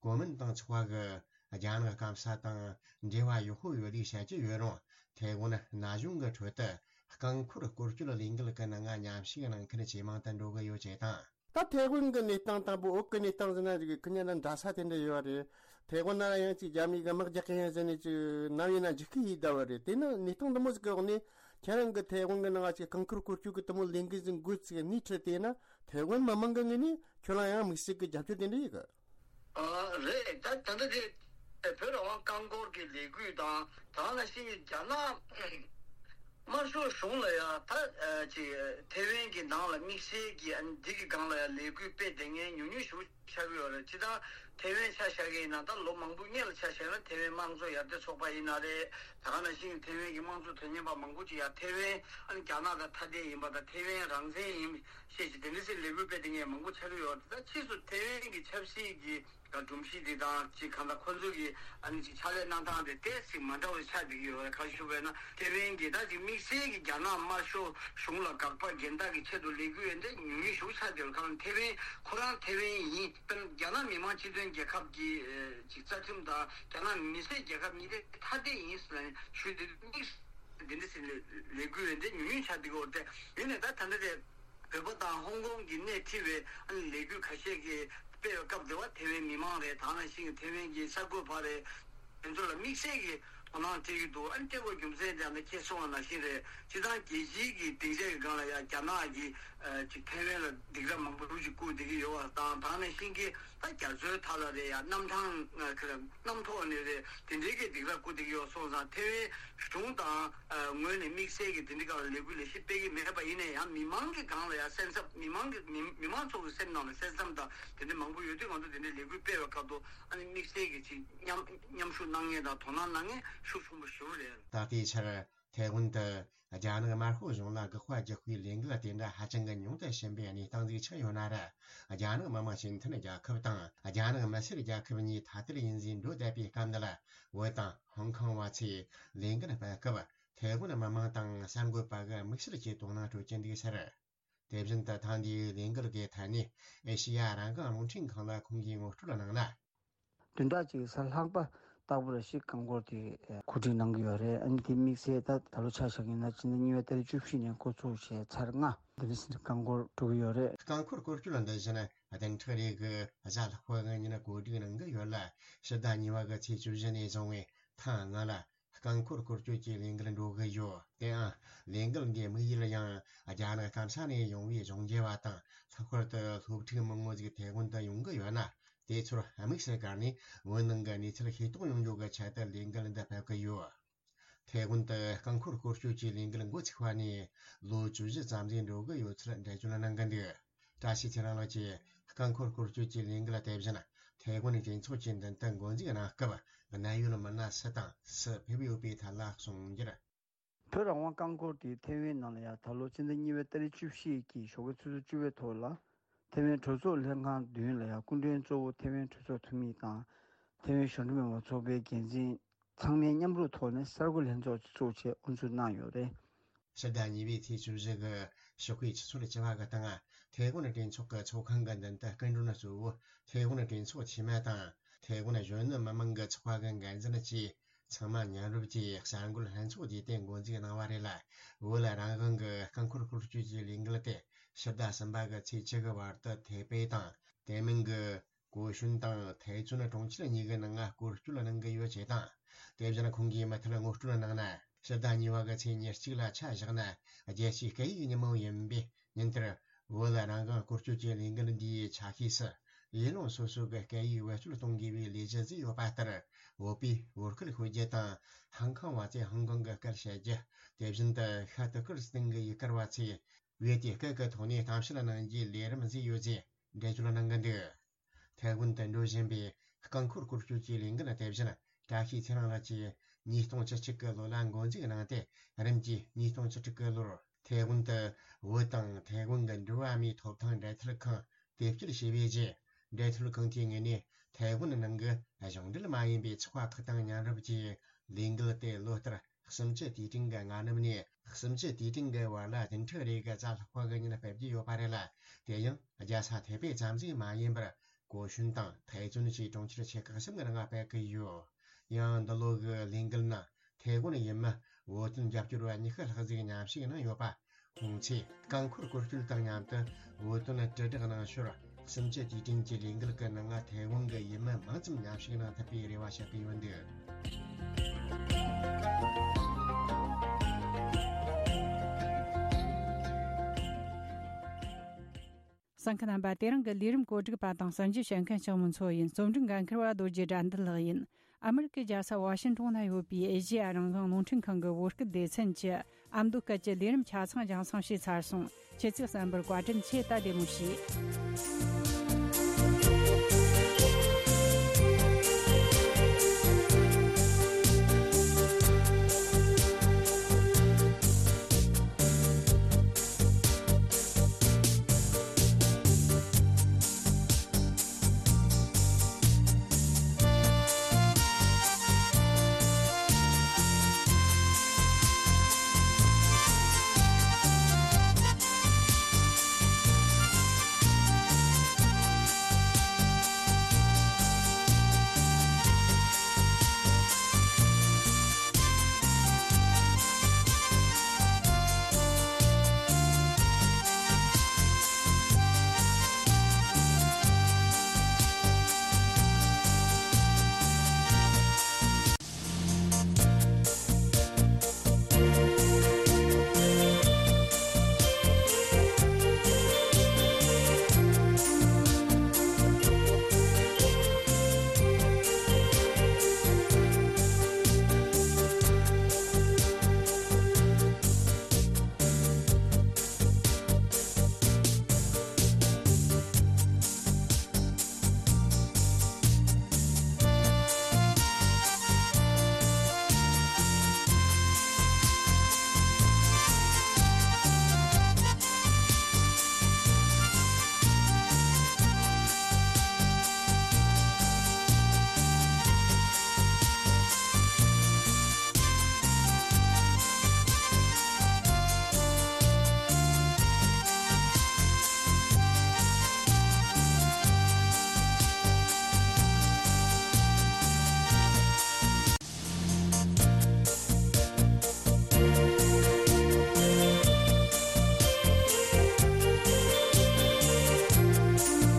གོ་མིན་ཏང་ཚོགས་པ་གི་རྒྱ་ནག་སྐམ་ས་དང་འབྲེལ་བ་ཡག་པོ་ཡོད་ལུགས་བཤད་ཀྱི་ཡོད་རུང་། ཐའེ་ཝན་ན་གཞུང་གི་ཁྲོད་དུ་རྐང་འཁོར་སྐོར་སྐྱོད་ལས་འགུལ་གྱི་ནང་མཉམ་ཞུགས་གནང་མཁན་ཇེ་མང་དུ་འགྲོ་གི་ཡོད་ཅེས་དང་། ད་ཐའེ་ཝན་གྱི་གནས་སྟངས་དང་བོད་ཀྱི་གནས་སྟངས་ཟེར་ན་ཅིག་ཁོ་གཉིས་ལ་འདྲ་ས་དེ་འདྲ་ཡོད་རེད། ཐའེ་ཝན་ན་ཡང་ཅིག་རྒྱ་མི་གི་དམག་རྒྱག་གི་ཡིན་ཟེར་ནས་ཅིག་ནམ་ཡིན་ན་འཇིགས་སྐུལ་ཡེད་བསྡད་པ་རེད། དེ་ནི་གནས་སྟངས་འདི་མོ་ཟིག་གི་འོག་ནས་ཁྱེད་རང་གི་ཐའེ་ཝན་གྱི་ནང་ཅིག་རྐང་འཁོར་སྐོར་སྐྱོད་ཀྱི་དེ་མོ་ལས་འགུལ་ཟིག་སྣེ་ཁྲིད་དེ་ན། ཐའེ་ཝན་མི་མང་གི་ངོས་ནས་ཁྱོད་ལ་ཡང་དམིགས་བསལ་གྱི་རྒྱབ་སྐྱོར་དེ་འདྲ་ཡོད་གི་ཨ། རེད། ད་ད་ལྟ་དེ་བོད་རང་དབང་རྐང་འཁོར་གྱི་ལས་འགུལ་དང་། ད་ག་ནང་བཞིན་རྒྱ་ནག་དམར་ཤོག་གཞུང་ལ་ཡང་ད་ཅིག་ཐའེ་ཝན་གྱི་ནང་ལ་དམིགས་བསལ་གྱི་ཨ་ནི་འདི་གི་སྒང་ལ་ཡང་ལས་འགུལ་སྤེལ་བསྡད་མཁན་ཉུང་ཉུང་ཞིག་ཆགས་ཀྱི་ཡོད་རེད། སྤྱིར་བཏང་ཐའེ་ཝན་ཆ་བཞག་གི་ཡིན་ན་ད་ལོ་མང་པོའི་སྔོན་ལ་ཆ་བཞག་ན་ཐའེ་ཝན་དམངས་གཙོ་ཡར་ཐོན་ཚོགས་པ་ཡིན་ན་རེད། ད་ག་ནང་བཞིན་ཐའེ་ཝན་གྱི་དམངས་གཙོ་དོན་གཉེར་བ་མང་པོ་ཅིག་ཡང་ཐའེ་ཝན་ཨ་ནི་རྒྱ་ནག་དང་ཐ་དད་ཡིན་པ་དང་ཐའེ་ཝན་རང་བཙན་ཡིན་ཞེས་ཀྱི་དེ་འདྲ་ཟེར་ལས་འགུལ་སྤེལ་བསྡད་མཁན་མང་པོ་ཆགས་ཀྱི་ཡོད་རེད། ད་ཕྱིས་སུ་ཐའེ་ཝན་གྱི་ཆབ་སྲིད་ཀྱི་སྒྲོམ་གཞི་འདི་དང་ཅིག་གང་ལྟར་ཁོ་ཚོ་གི་ཨ་ནི་ཅིག་ཕྱག་ལས་གནང་སྟངས་དེ་ཏོག་ཙམ་མ་འདྲ་བ་ཆགས་བསྡད་ཀྱི་ཡོད་རེད། ག་རེ་ཞུ་བས་ན་ཐའེ་ཝན་གྱི་ད་ཅིག་དམིགས་བསལ་གྱི་རྒྱ་ནག་དམར་ཤོག་གཞུང་ལ་དགག་པ་འགལ་ཟླ་གི་ཆེད་དུ་ལས་འགུལ་ཡོད་འདི་ཉུང་ཉུང་ཞིག་ཆགས་བསྡད་ཡོད་རེད། གང་ལྟར་ཐའེ་ཝན་ཁོ་རང་ཐའེ་ཝན་ཡིན། དཔེར་ན་རྒྱ་ནག་མི་དམངས་སྤྱི་མཐུན་རྒྱལ་ཁབ་ཀྱི་ཨ་ཅིག་རྩ་ཁྲིམས་དང་རྒྱ་ནག་མི་སེར་རྒྱལ་ཁབ་གཉིས་དེ་ཐ་དད་ཡིན་ཟེར་ནས་ཞུས་ཏེ་དམིགས་བསལ་འདི་འདྲ་ཟེར་ལས་ལས་འགུལ་ཡོད་འདི་ཉུང་ཉུང་ཆགས་བསྡད་ཀྱི་ཡོད་རེད། ཡིན་ནའི་ད་ད་ལྟ་དེ་བོད་པ་དང་ཧོང་ཀོང་གི་སྣེ་ཁྲིད་པའི་ཨ་ནི་ལས་འགུལ་ཁ་ཤས་ཀྱི་སྤེལ་བའི་སྐབས་དེ་བ་ཐའེ་ཝན་མི་མང་རེད། ད་ག་ནང་བཞིན་ཐའེ་ཝན་གྱི་གསར་འགོད་པ་རེད། དེ་ཚོ་ལ་དམིགས་བསལ་གྱི་དོ་སྣང་སྤྲད་ཀྱི་འདུག་ཨ་ནི་སྤྲད་དགོས་རྒྱུ་མཚན་དེ་ཨ་ནི་ཁྱེད་གསུངས་པ་ནང་བཞིན་རེད། སྤྱིར་བཏང་རྒྱལ་སྤྱིའི་གི་སྡིངས་ཆ་གི་སྒང་ལ་ཡང་རྒྱ་ནག་གིས་ཨ་ཅིག་ཐའེ་ཝན་ལ་སྡིགས་ར་མང་པོ་རུ་ཅིག་བསྐུར་བསྡད་ཀྱི་ཡོད་པ་དང་། ད་ག་ནང་བཞིན་གྱི་ད་རྒྱ་མཚོའི་མཐའ་ལ་རེད། ཡང་གནམ་ཐང་ཨ་ཁ་གནམ་ཐོག་ནས་རེད། དེ་འདྲའི་གི་སྡིགས་ར་བསྐུར་བསྡད་ཀྱི་ཡོད་སོང་ཙང་ཐའེ་ཝན་གཞུང་དང་ཨ་ངོས་ནས་དམིགས་བསལ་གྱི་དེ་འདྲའི་སྒང་ལ་ལས་འགུལ་ལས་གཞི་སྤེལ་གྱི་མེད་པ་ཡིན་ན་ཡང་། མི་མང་གི་སྒང་ལ་ཡང་སེམས་འཚབ། མི་མང་གི་མི་མི་མང་ཚོ་གི་སེམས་ནང་ལ་སེམས་འཚབ་དང་དེ་འདྲ་མང་པོ་ཡོད་དུས། ང་ཚོ་དེ་འདྲའི་ལས་འགུལ་སྤེལ་བའི་སྐབས་དུ་ཨ་ནི་དམིགས་བསལ་གྱི་ཅིག་མཉམ་མཉམ་ཞུགས་གནང་མཁན་དང་དོ་སྣང་གནང་མཁན་ཤུགས་ཆེན་པོ་ཞེ་པོ་རེད། ད་ལྟའི་ཆར་ཐའེ་ཝན་དུ་རྒྱ་ནག་དམར་ཤོག་གཞུང་ལ་དགག་པ་རྒྱག་པའི་ལས་འགུལ་དེ་འདྲ་ཧ་ཅང་གི་ཉུང་དུ་ཕྱིན་པའི་གནས་སྟངས་ཟིག་ཆགས་ཡོད་ན་ར། རྒྱ་ནག་མི་དམངས་སྤྱི་མཐུན་རྒྱལ་ཁབ་དང་རྒྱ་ནག་མི་སེར་རྒྱལ་ཁབ་གཉིས་ཐ་དད་ཡིན་ཟེར་འགྲོ་བསྡད་པའི་སྐབས་འདི་ལ། བོད་དང་ཧོང་ཀོང་བ་ཚོས་ལས་འགུལ་སྤེལ་སྐབས་ཐའེ་ཝན་མི་དམངས་དང་གསར་འགོད་པ་གི་དམིགས་བསལ་གྱི་དོ་སྣང་སྤྲོད་ཀྱི་འདུག་ཟེར། དེ་བཞིན་དུ་ཐེངས་འདིའི་ལས་འགུལ་གྱི་ཐད་ནས་ཨེ་ཤེ་ཡ་རང་དབང་རླུང་འཕྲིན་ཁང་ལ་ཁོང་གིས་ངོ་སྤྲོད་གནང་ན། བདུན་ཕྲག་གཅིག་གི་ས་ལྷག་པ་ རྟག་པར་ཞིག་རྐང་འཁོར་དེ་གོ་སྒྲིག་གནང་གི་ཡོད་རེད། ཨ་ནི་དེ་དམིགས་བསལ་ད་ད་ལོ་ཆ་བཞག་ཡིན་ན་ཕྱི་ཟླ་གཉིས་པའི་ཏ་རིག་བཅུ་བཞི་ནས་འགོ་ཚུགས་བྱས་ཚར་ལྔ་འདི་ནས་རྐང་འཁོར་འགྲོ་གི་ཡོད་རེད། རྐང་འཁོར་སྐོར་སྐྱོད་འདི་བཞིན་བདུན་ཕྲག་རེ་གི་གཟའ་ལྷག་པ་གི་ཉིན་གོ་སྒྲིག་གནང་གི་ཡོད་ལ། ཕྱི་ཟླ་གཉིས་པ་གི་ཚེས་བཅུ་བཞི་ནས་བཟུང་བའི་ཐེངས་ལྔ་ལ་རྐང་འཁོར་སྐོར་སྐྱོད་ཀྱི་ལས་འགུལ་འགྲོ་གི་ཡོད། དེའང་ལས་འགུལ་འདིའི་དམིགས་ཡུལ་ཡང་རྒྱ་ནག་སྐམ་ས་ནས་ཡོང་བའི་གཞུང་འབྲེལ་བ་དང་། ལྷག་པར་དུ་སློབ་ཕྲུག་མང་པོ་ཞིག་ཐའེ་ཝན་དུ་ཡོང་གི་ཡོད་ན། དེ་ཚོར་དམིགས་སུ་བཀར་ནས་བོད་ནང་གི་གནས་ཚུལ་ཤེས་རྟོགས་ཡོང་རྒྱུ་གི་ཆེད་དུ་ལས་འགུལ་འདི་ཕེབས་ཀྱི་ཡོད། ཐའེ་ཝན་དུ་རྐང་འཁོར་སྐོར་སྐྱོད་ཀྱི་ལས་འགུལ་འགོ་ཚུགས་པ་ནས་ལོ་བཅུ་བཞི་ཙམ་ཞིག་འགྲོ་གི་ཡོད་ཚུལ་འགྲེལ་བརྗོད་གནང་གི་འདུག། བཀྲ་ཤིས་ཚེ་རིང་ལགས་ཀྱིས་རྐང་འཁོར་སྐོར་སྐྱོད་ཀྱི་ལས་འགུལ་དེ་བཞིན་ཐའེ་ཝན་གྲོས་ཚོགས་ཀྱི་མདུན་དུ་འགོ་འཛུགས་གནང་སྐབས། གནད་ཡོད་མི་སྣ་སུ་དང་སུ་ཕེབས་ཡོད་པའི་ཐད་ལ་གསུངས་རྒྱུར། བོད་རང་དབང་རྐང་འཁོར་དེ་ཐའེ་ཝན་ནང་ལ་ཡང་ད་ལོ་ཕྱི་ཟླ་གཉིས་པའི་ཏ་རིག་བཅུ་བཞི་གི་ཞོགས་ཀའི་ཆུ་ཚོད་བཅུ་པའི་ཐོག་ལ། ཐའེ་ཝན་གྲོས་ཚོགས་ལྷན་ཁང་མདུན་ལ་ཡང་སྐུ་མགྲོན་གཙོ་བོ་ཐའེ་ཝན་གྲོས་ཚོགས་འཐུས་མི་དང་། ཐའེ་ཝན་གཞུང་འབྲེལ་མི་མང་ཚོགས་པའི་འགན་འཛིན་ཚང་མས་མཉམ་རུབ་ཐོག་ནས་གསར་འགོད་ལྷན་ཚོགས་ཚོགས་ཆེད་དབུ་འཛུགས་གནང་ཡོད་རེད། ཕྱི་ཟླ་གཉིས་པའི་ཚེས་བཅུ་བཞི་གི་ཞོགས་ཀའི་ཆུ་ཚོད་བཅུ་པ་གི་སྟེང་། ཐའེ་ཝན་གྲོས་ཚོགས་ཀྱི་ཚོགས་ཁང་གི་མདུན་དུ་སྐུ་མགྲོན་གཙོ་བོ་ཐའེ་ཝན་གྲོས་ཚོགས་འཐུས་མི་དང་། ཐའེ་ཝན་གཞོན་ནུ་མི་མང་གི་ཚོགས་པ་གི་འགན་འཛིན་བཅས་ཚང་མ་མཉམ་རུབ་ཀྱིས་གསར་འགོད་ལྷན་ཚོགས་བརྒྱུད་དེ་འགོ་འཛུགས་གནང་བ་རེད་ལ། བོད་ལ་རང་དབང་གི་རྐང་འཁོར་སྐོར་སྐྱོད་ཀྱི་ལས་འགུལ་དེ་ཕྱི་ཟླ་གསུམ་པ་གི་ཚེས་བཅུ་གི་བར་དུ་ཐའེ་པེ་དང་། དེ་མིན་གྱི་གོ་ཤུན་དང་ཐའེ་ཙུན་གྲོང་ཁྱེར་གཉིས་ཀྱི་ནང་སྐོར་སྐྱོད་གནང་གི་ཡོད་ཅེས་དང་། དེ་བཞིན་ཁོང་གིས་མུ་མཐུད་ངོ་སྤྲོད་གནང་ན། ཕྱི་ཟླ་གཉིས་པ་གི་ཚེས་ཉེར་གཅིག་ལ་ཆ་བཞག་ན། རྒྱལ་སྤྱིའི་སྐད་ཡིག་ཉིན་མོ་ཡིན་པས། ཉིན་དེར་བོད་ལ་རང་དབང་སྐོར་སྐྱོད་ཀྱི་ལས་འགུལ་འདིའི་ཆ་ཤས་སུ། ཡུལ་ལུང་སོ་སོ་གི་སྐད་ཡིག་བེད་སྤྱོད་གཏོང་དགོས་པའི་ལས་གཞི་བཟོས་ཡོད་པ་ལྟར། བོད་པས་བོད་སྐད་ཤོད་རྒྱུ་དང་། ཧང་ཀང་བ་ཚོས་ཧང་ཀང་གི་སྐད་བཤད་རྒྱུ། དེ་བཞིན་དུ་ཤར་ཏུར་ཀི་སི་ཐན་གྱི་ཡུལ་གར་བ་ཚོས་བོད་ཀྱི་སྐད་ཀྱི་ཐོག་ནས་གཏམ་བཤད་གནང་རྒྱུའི་ལས་རིམ་བཟོས་ཡོད་ཅེས་འགྲེལ་བརྗོད་གནང་གི་འདུག། ཐའེ་ཝན་དུ་འགྲོ་བཞིན་པའི་རྐང་འཁོར་སྐོར་སྐྱོད་ཀྱི་ལས་འགུལ་དེ་བཞིན་བཀྲ་ཤིས་ཚེ་རིང་ལགས་ཀྱིས་ཉིས་སྟོང་བཅུ་གཅིག་གི་ལོ་ལ་འགོ་འཛུགས་གནང་སྟེ། རིམ་གྱིས་ཉིས་སྟོང་བཅུ་དྲུག་གི་ལོར་ཐའེ་ཝན་དུ་བོད་དང་ཐའེ་ཝན་གྱི་འགྲོ་བ་མིའི་ཐོབ་ཐང་འབྲེལ་མཐུད་ཁང་དེ་བསྐྱོད་བྱས་པའི་རྗེས། འབྲེལ་མཐུད་ཁང་དེའི་ངོས་ནས་ཐའེ་ཝན་ནང་གི་གཞུང་འབྲེལ་མ་ཡིན་པའི་ཚོགས་པ་ཁག་དང་མཉམ་རུབ་ཀྱིས་ལས་འགུལ་དེ་ལོ་ལྟར་གསུམ་བཅུ་དུས་དྲན་གྱི་སྔ་ནུབ་ནས་གསུམ་བཅུ་དུས་དྲན་གྱི་བར་ལ་བདུན་ཕྲག་རེ་གི་གཟའ་ལྷག་པ་གི་ཉིན་སྤེལ་གྱི་ཡོད་པ་རེད་ལ། དེ་ཡང་རྒྱལ་ས་ཐའེ་པེ་ཙམ་ཞིག་མ་ཡིན་པར། གོ་ཤུན་དང་ཐའེ་ཙུན་བཅས་གྲོང་ཁྱེར་ཆེ་ཁག་གསུམ་གྱི་ནང་སྤེལ་གྱི་ཡོད། ཡང་འདི་ལོ་གི་ལས་འགུལ་ནང་ཐའེ་ཝན་ཡུལ་མི་བོད་དོན་རྒྱབ་སྐྱོར་བ་ཉི་ཤུ་ལྷག་ཅིག་མཉམ་ཞུགས་གནང་ཡོད་པ། ཁོང་ཚོས་རྐང་འཁོར་སྐོར་སྐྱོད་དང་མཉམ་དུ་བོད་དོན་དྲིལ་བསྒྲགས་གནང་ཞོར། གསུམ་བཅུ་དུས་དྲན་གྱི་ལས་འགུལ་གྱི་ནང་ཐའེ་ཝན་གྱི་ཡུལ་མི་མང་ཙམ་མཉམ་ཞུགས་གནང་ཐུབ་པའི་རེ་བ་བྱེད་ཀྱི་ཡོད་འདུག། གསན་མཁན་རྣམ་པ། དེ་རིང་གི་ལས་རིམ་གོ་སྒྲིག་པ་དང་གསར་འགྱུར་བཤད་མཁན་ལྕགས་མོ་མཚོ་ཡིན། རྩོམ་སྒྲིག་འགན་འཁུར་བ་རྡོ་རྗེ་དགྲ་འདུལ་ལགས་ཡིན། ཨ་མི་རི་ཀའི་རྒྱལ་ས་ཝ་ཤིང་ཏོན་ན་ཡོད་པའི་ཨེ་ཤེ་ཡ་རང་དབང་རླུང་འཕྲིན་ཁང་གི་བོད་སྐད་སྡེ་ཚན་གྱི་ཨ་མདོ་སྐད་ཀྱི་ལས་རིམ་ཆ་ཚང་རྒྱང་སྲིང་བྱས་ཚར་སོང་། ཁྱེད་ཚོས་གསན་པར་བཀའ་དྲིན་ཆེ། ད་བདེ་མོ་བྱོས།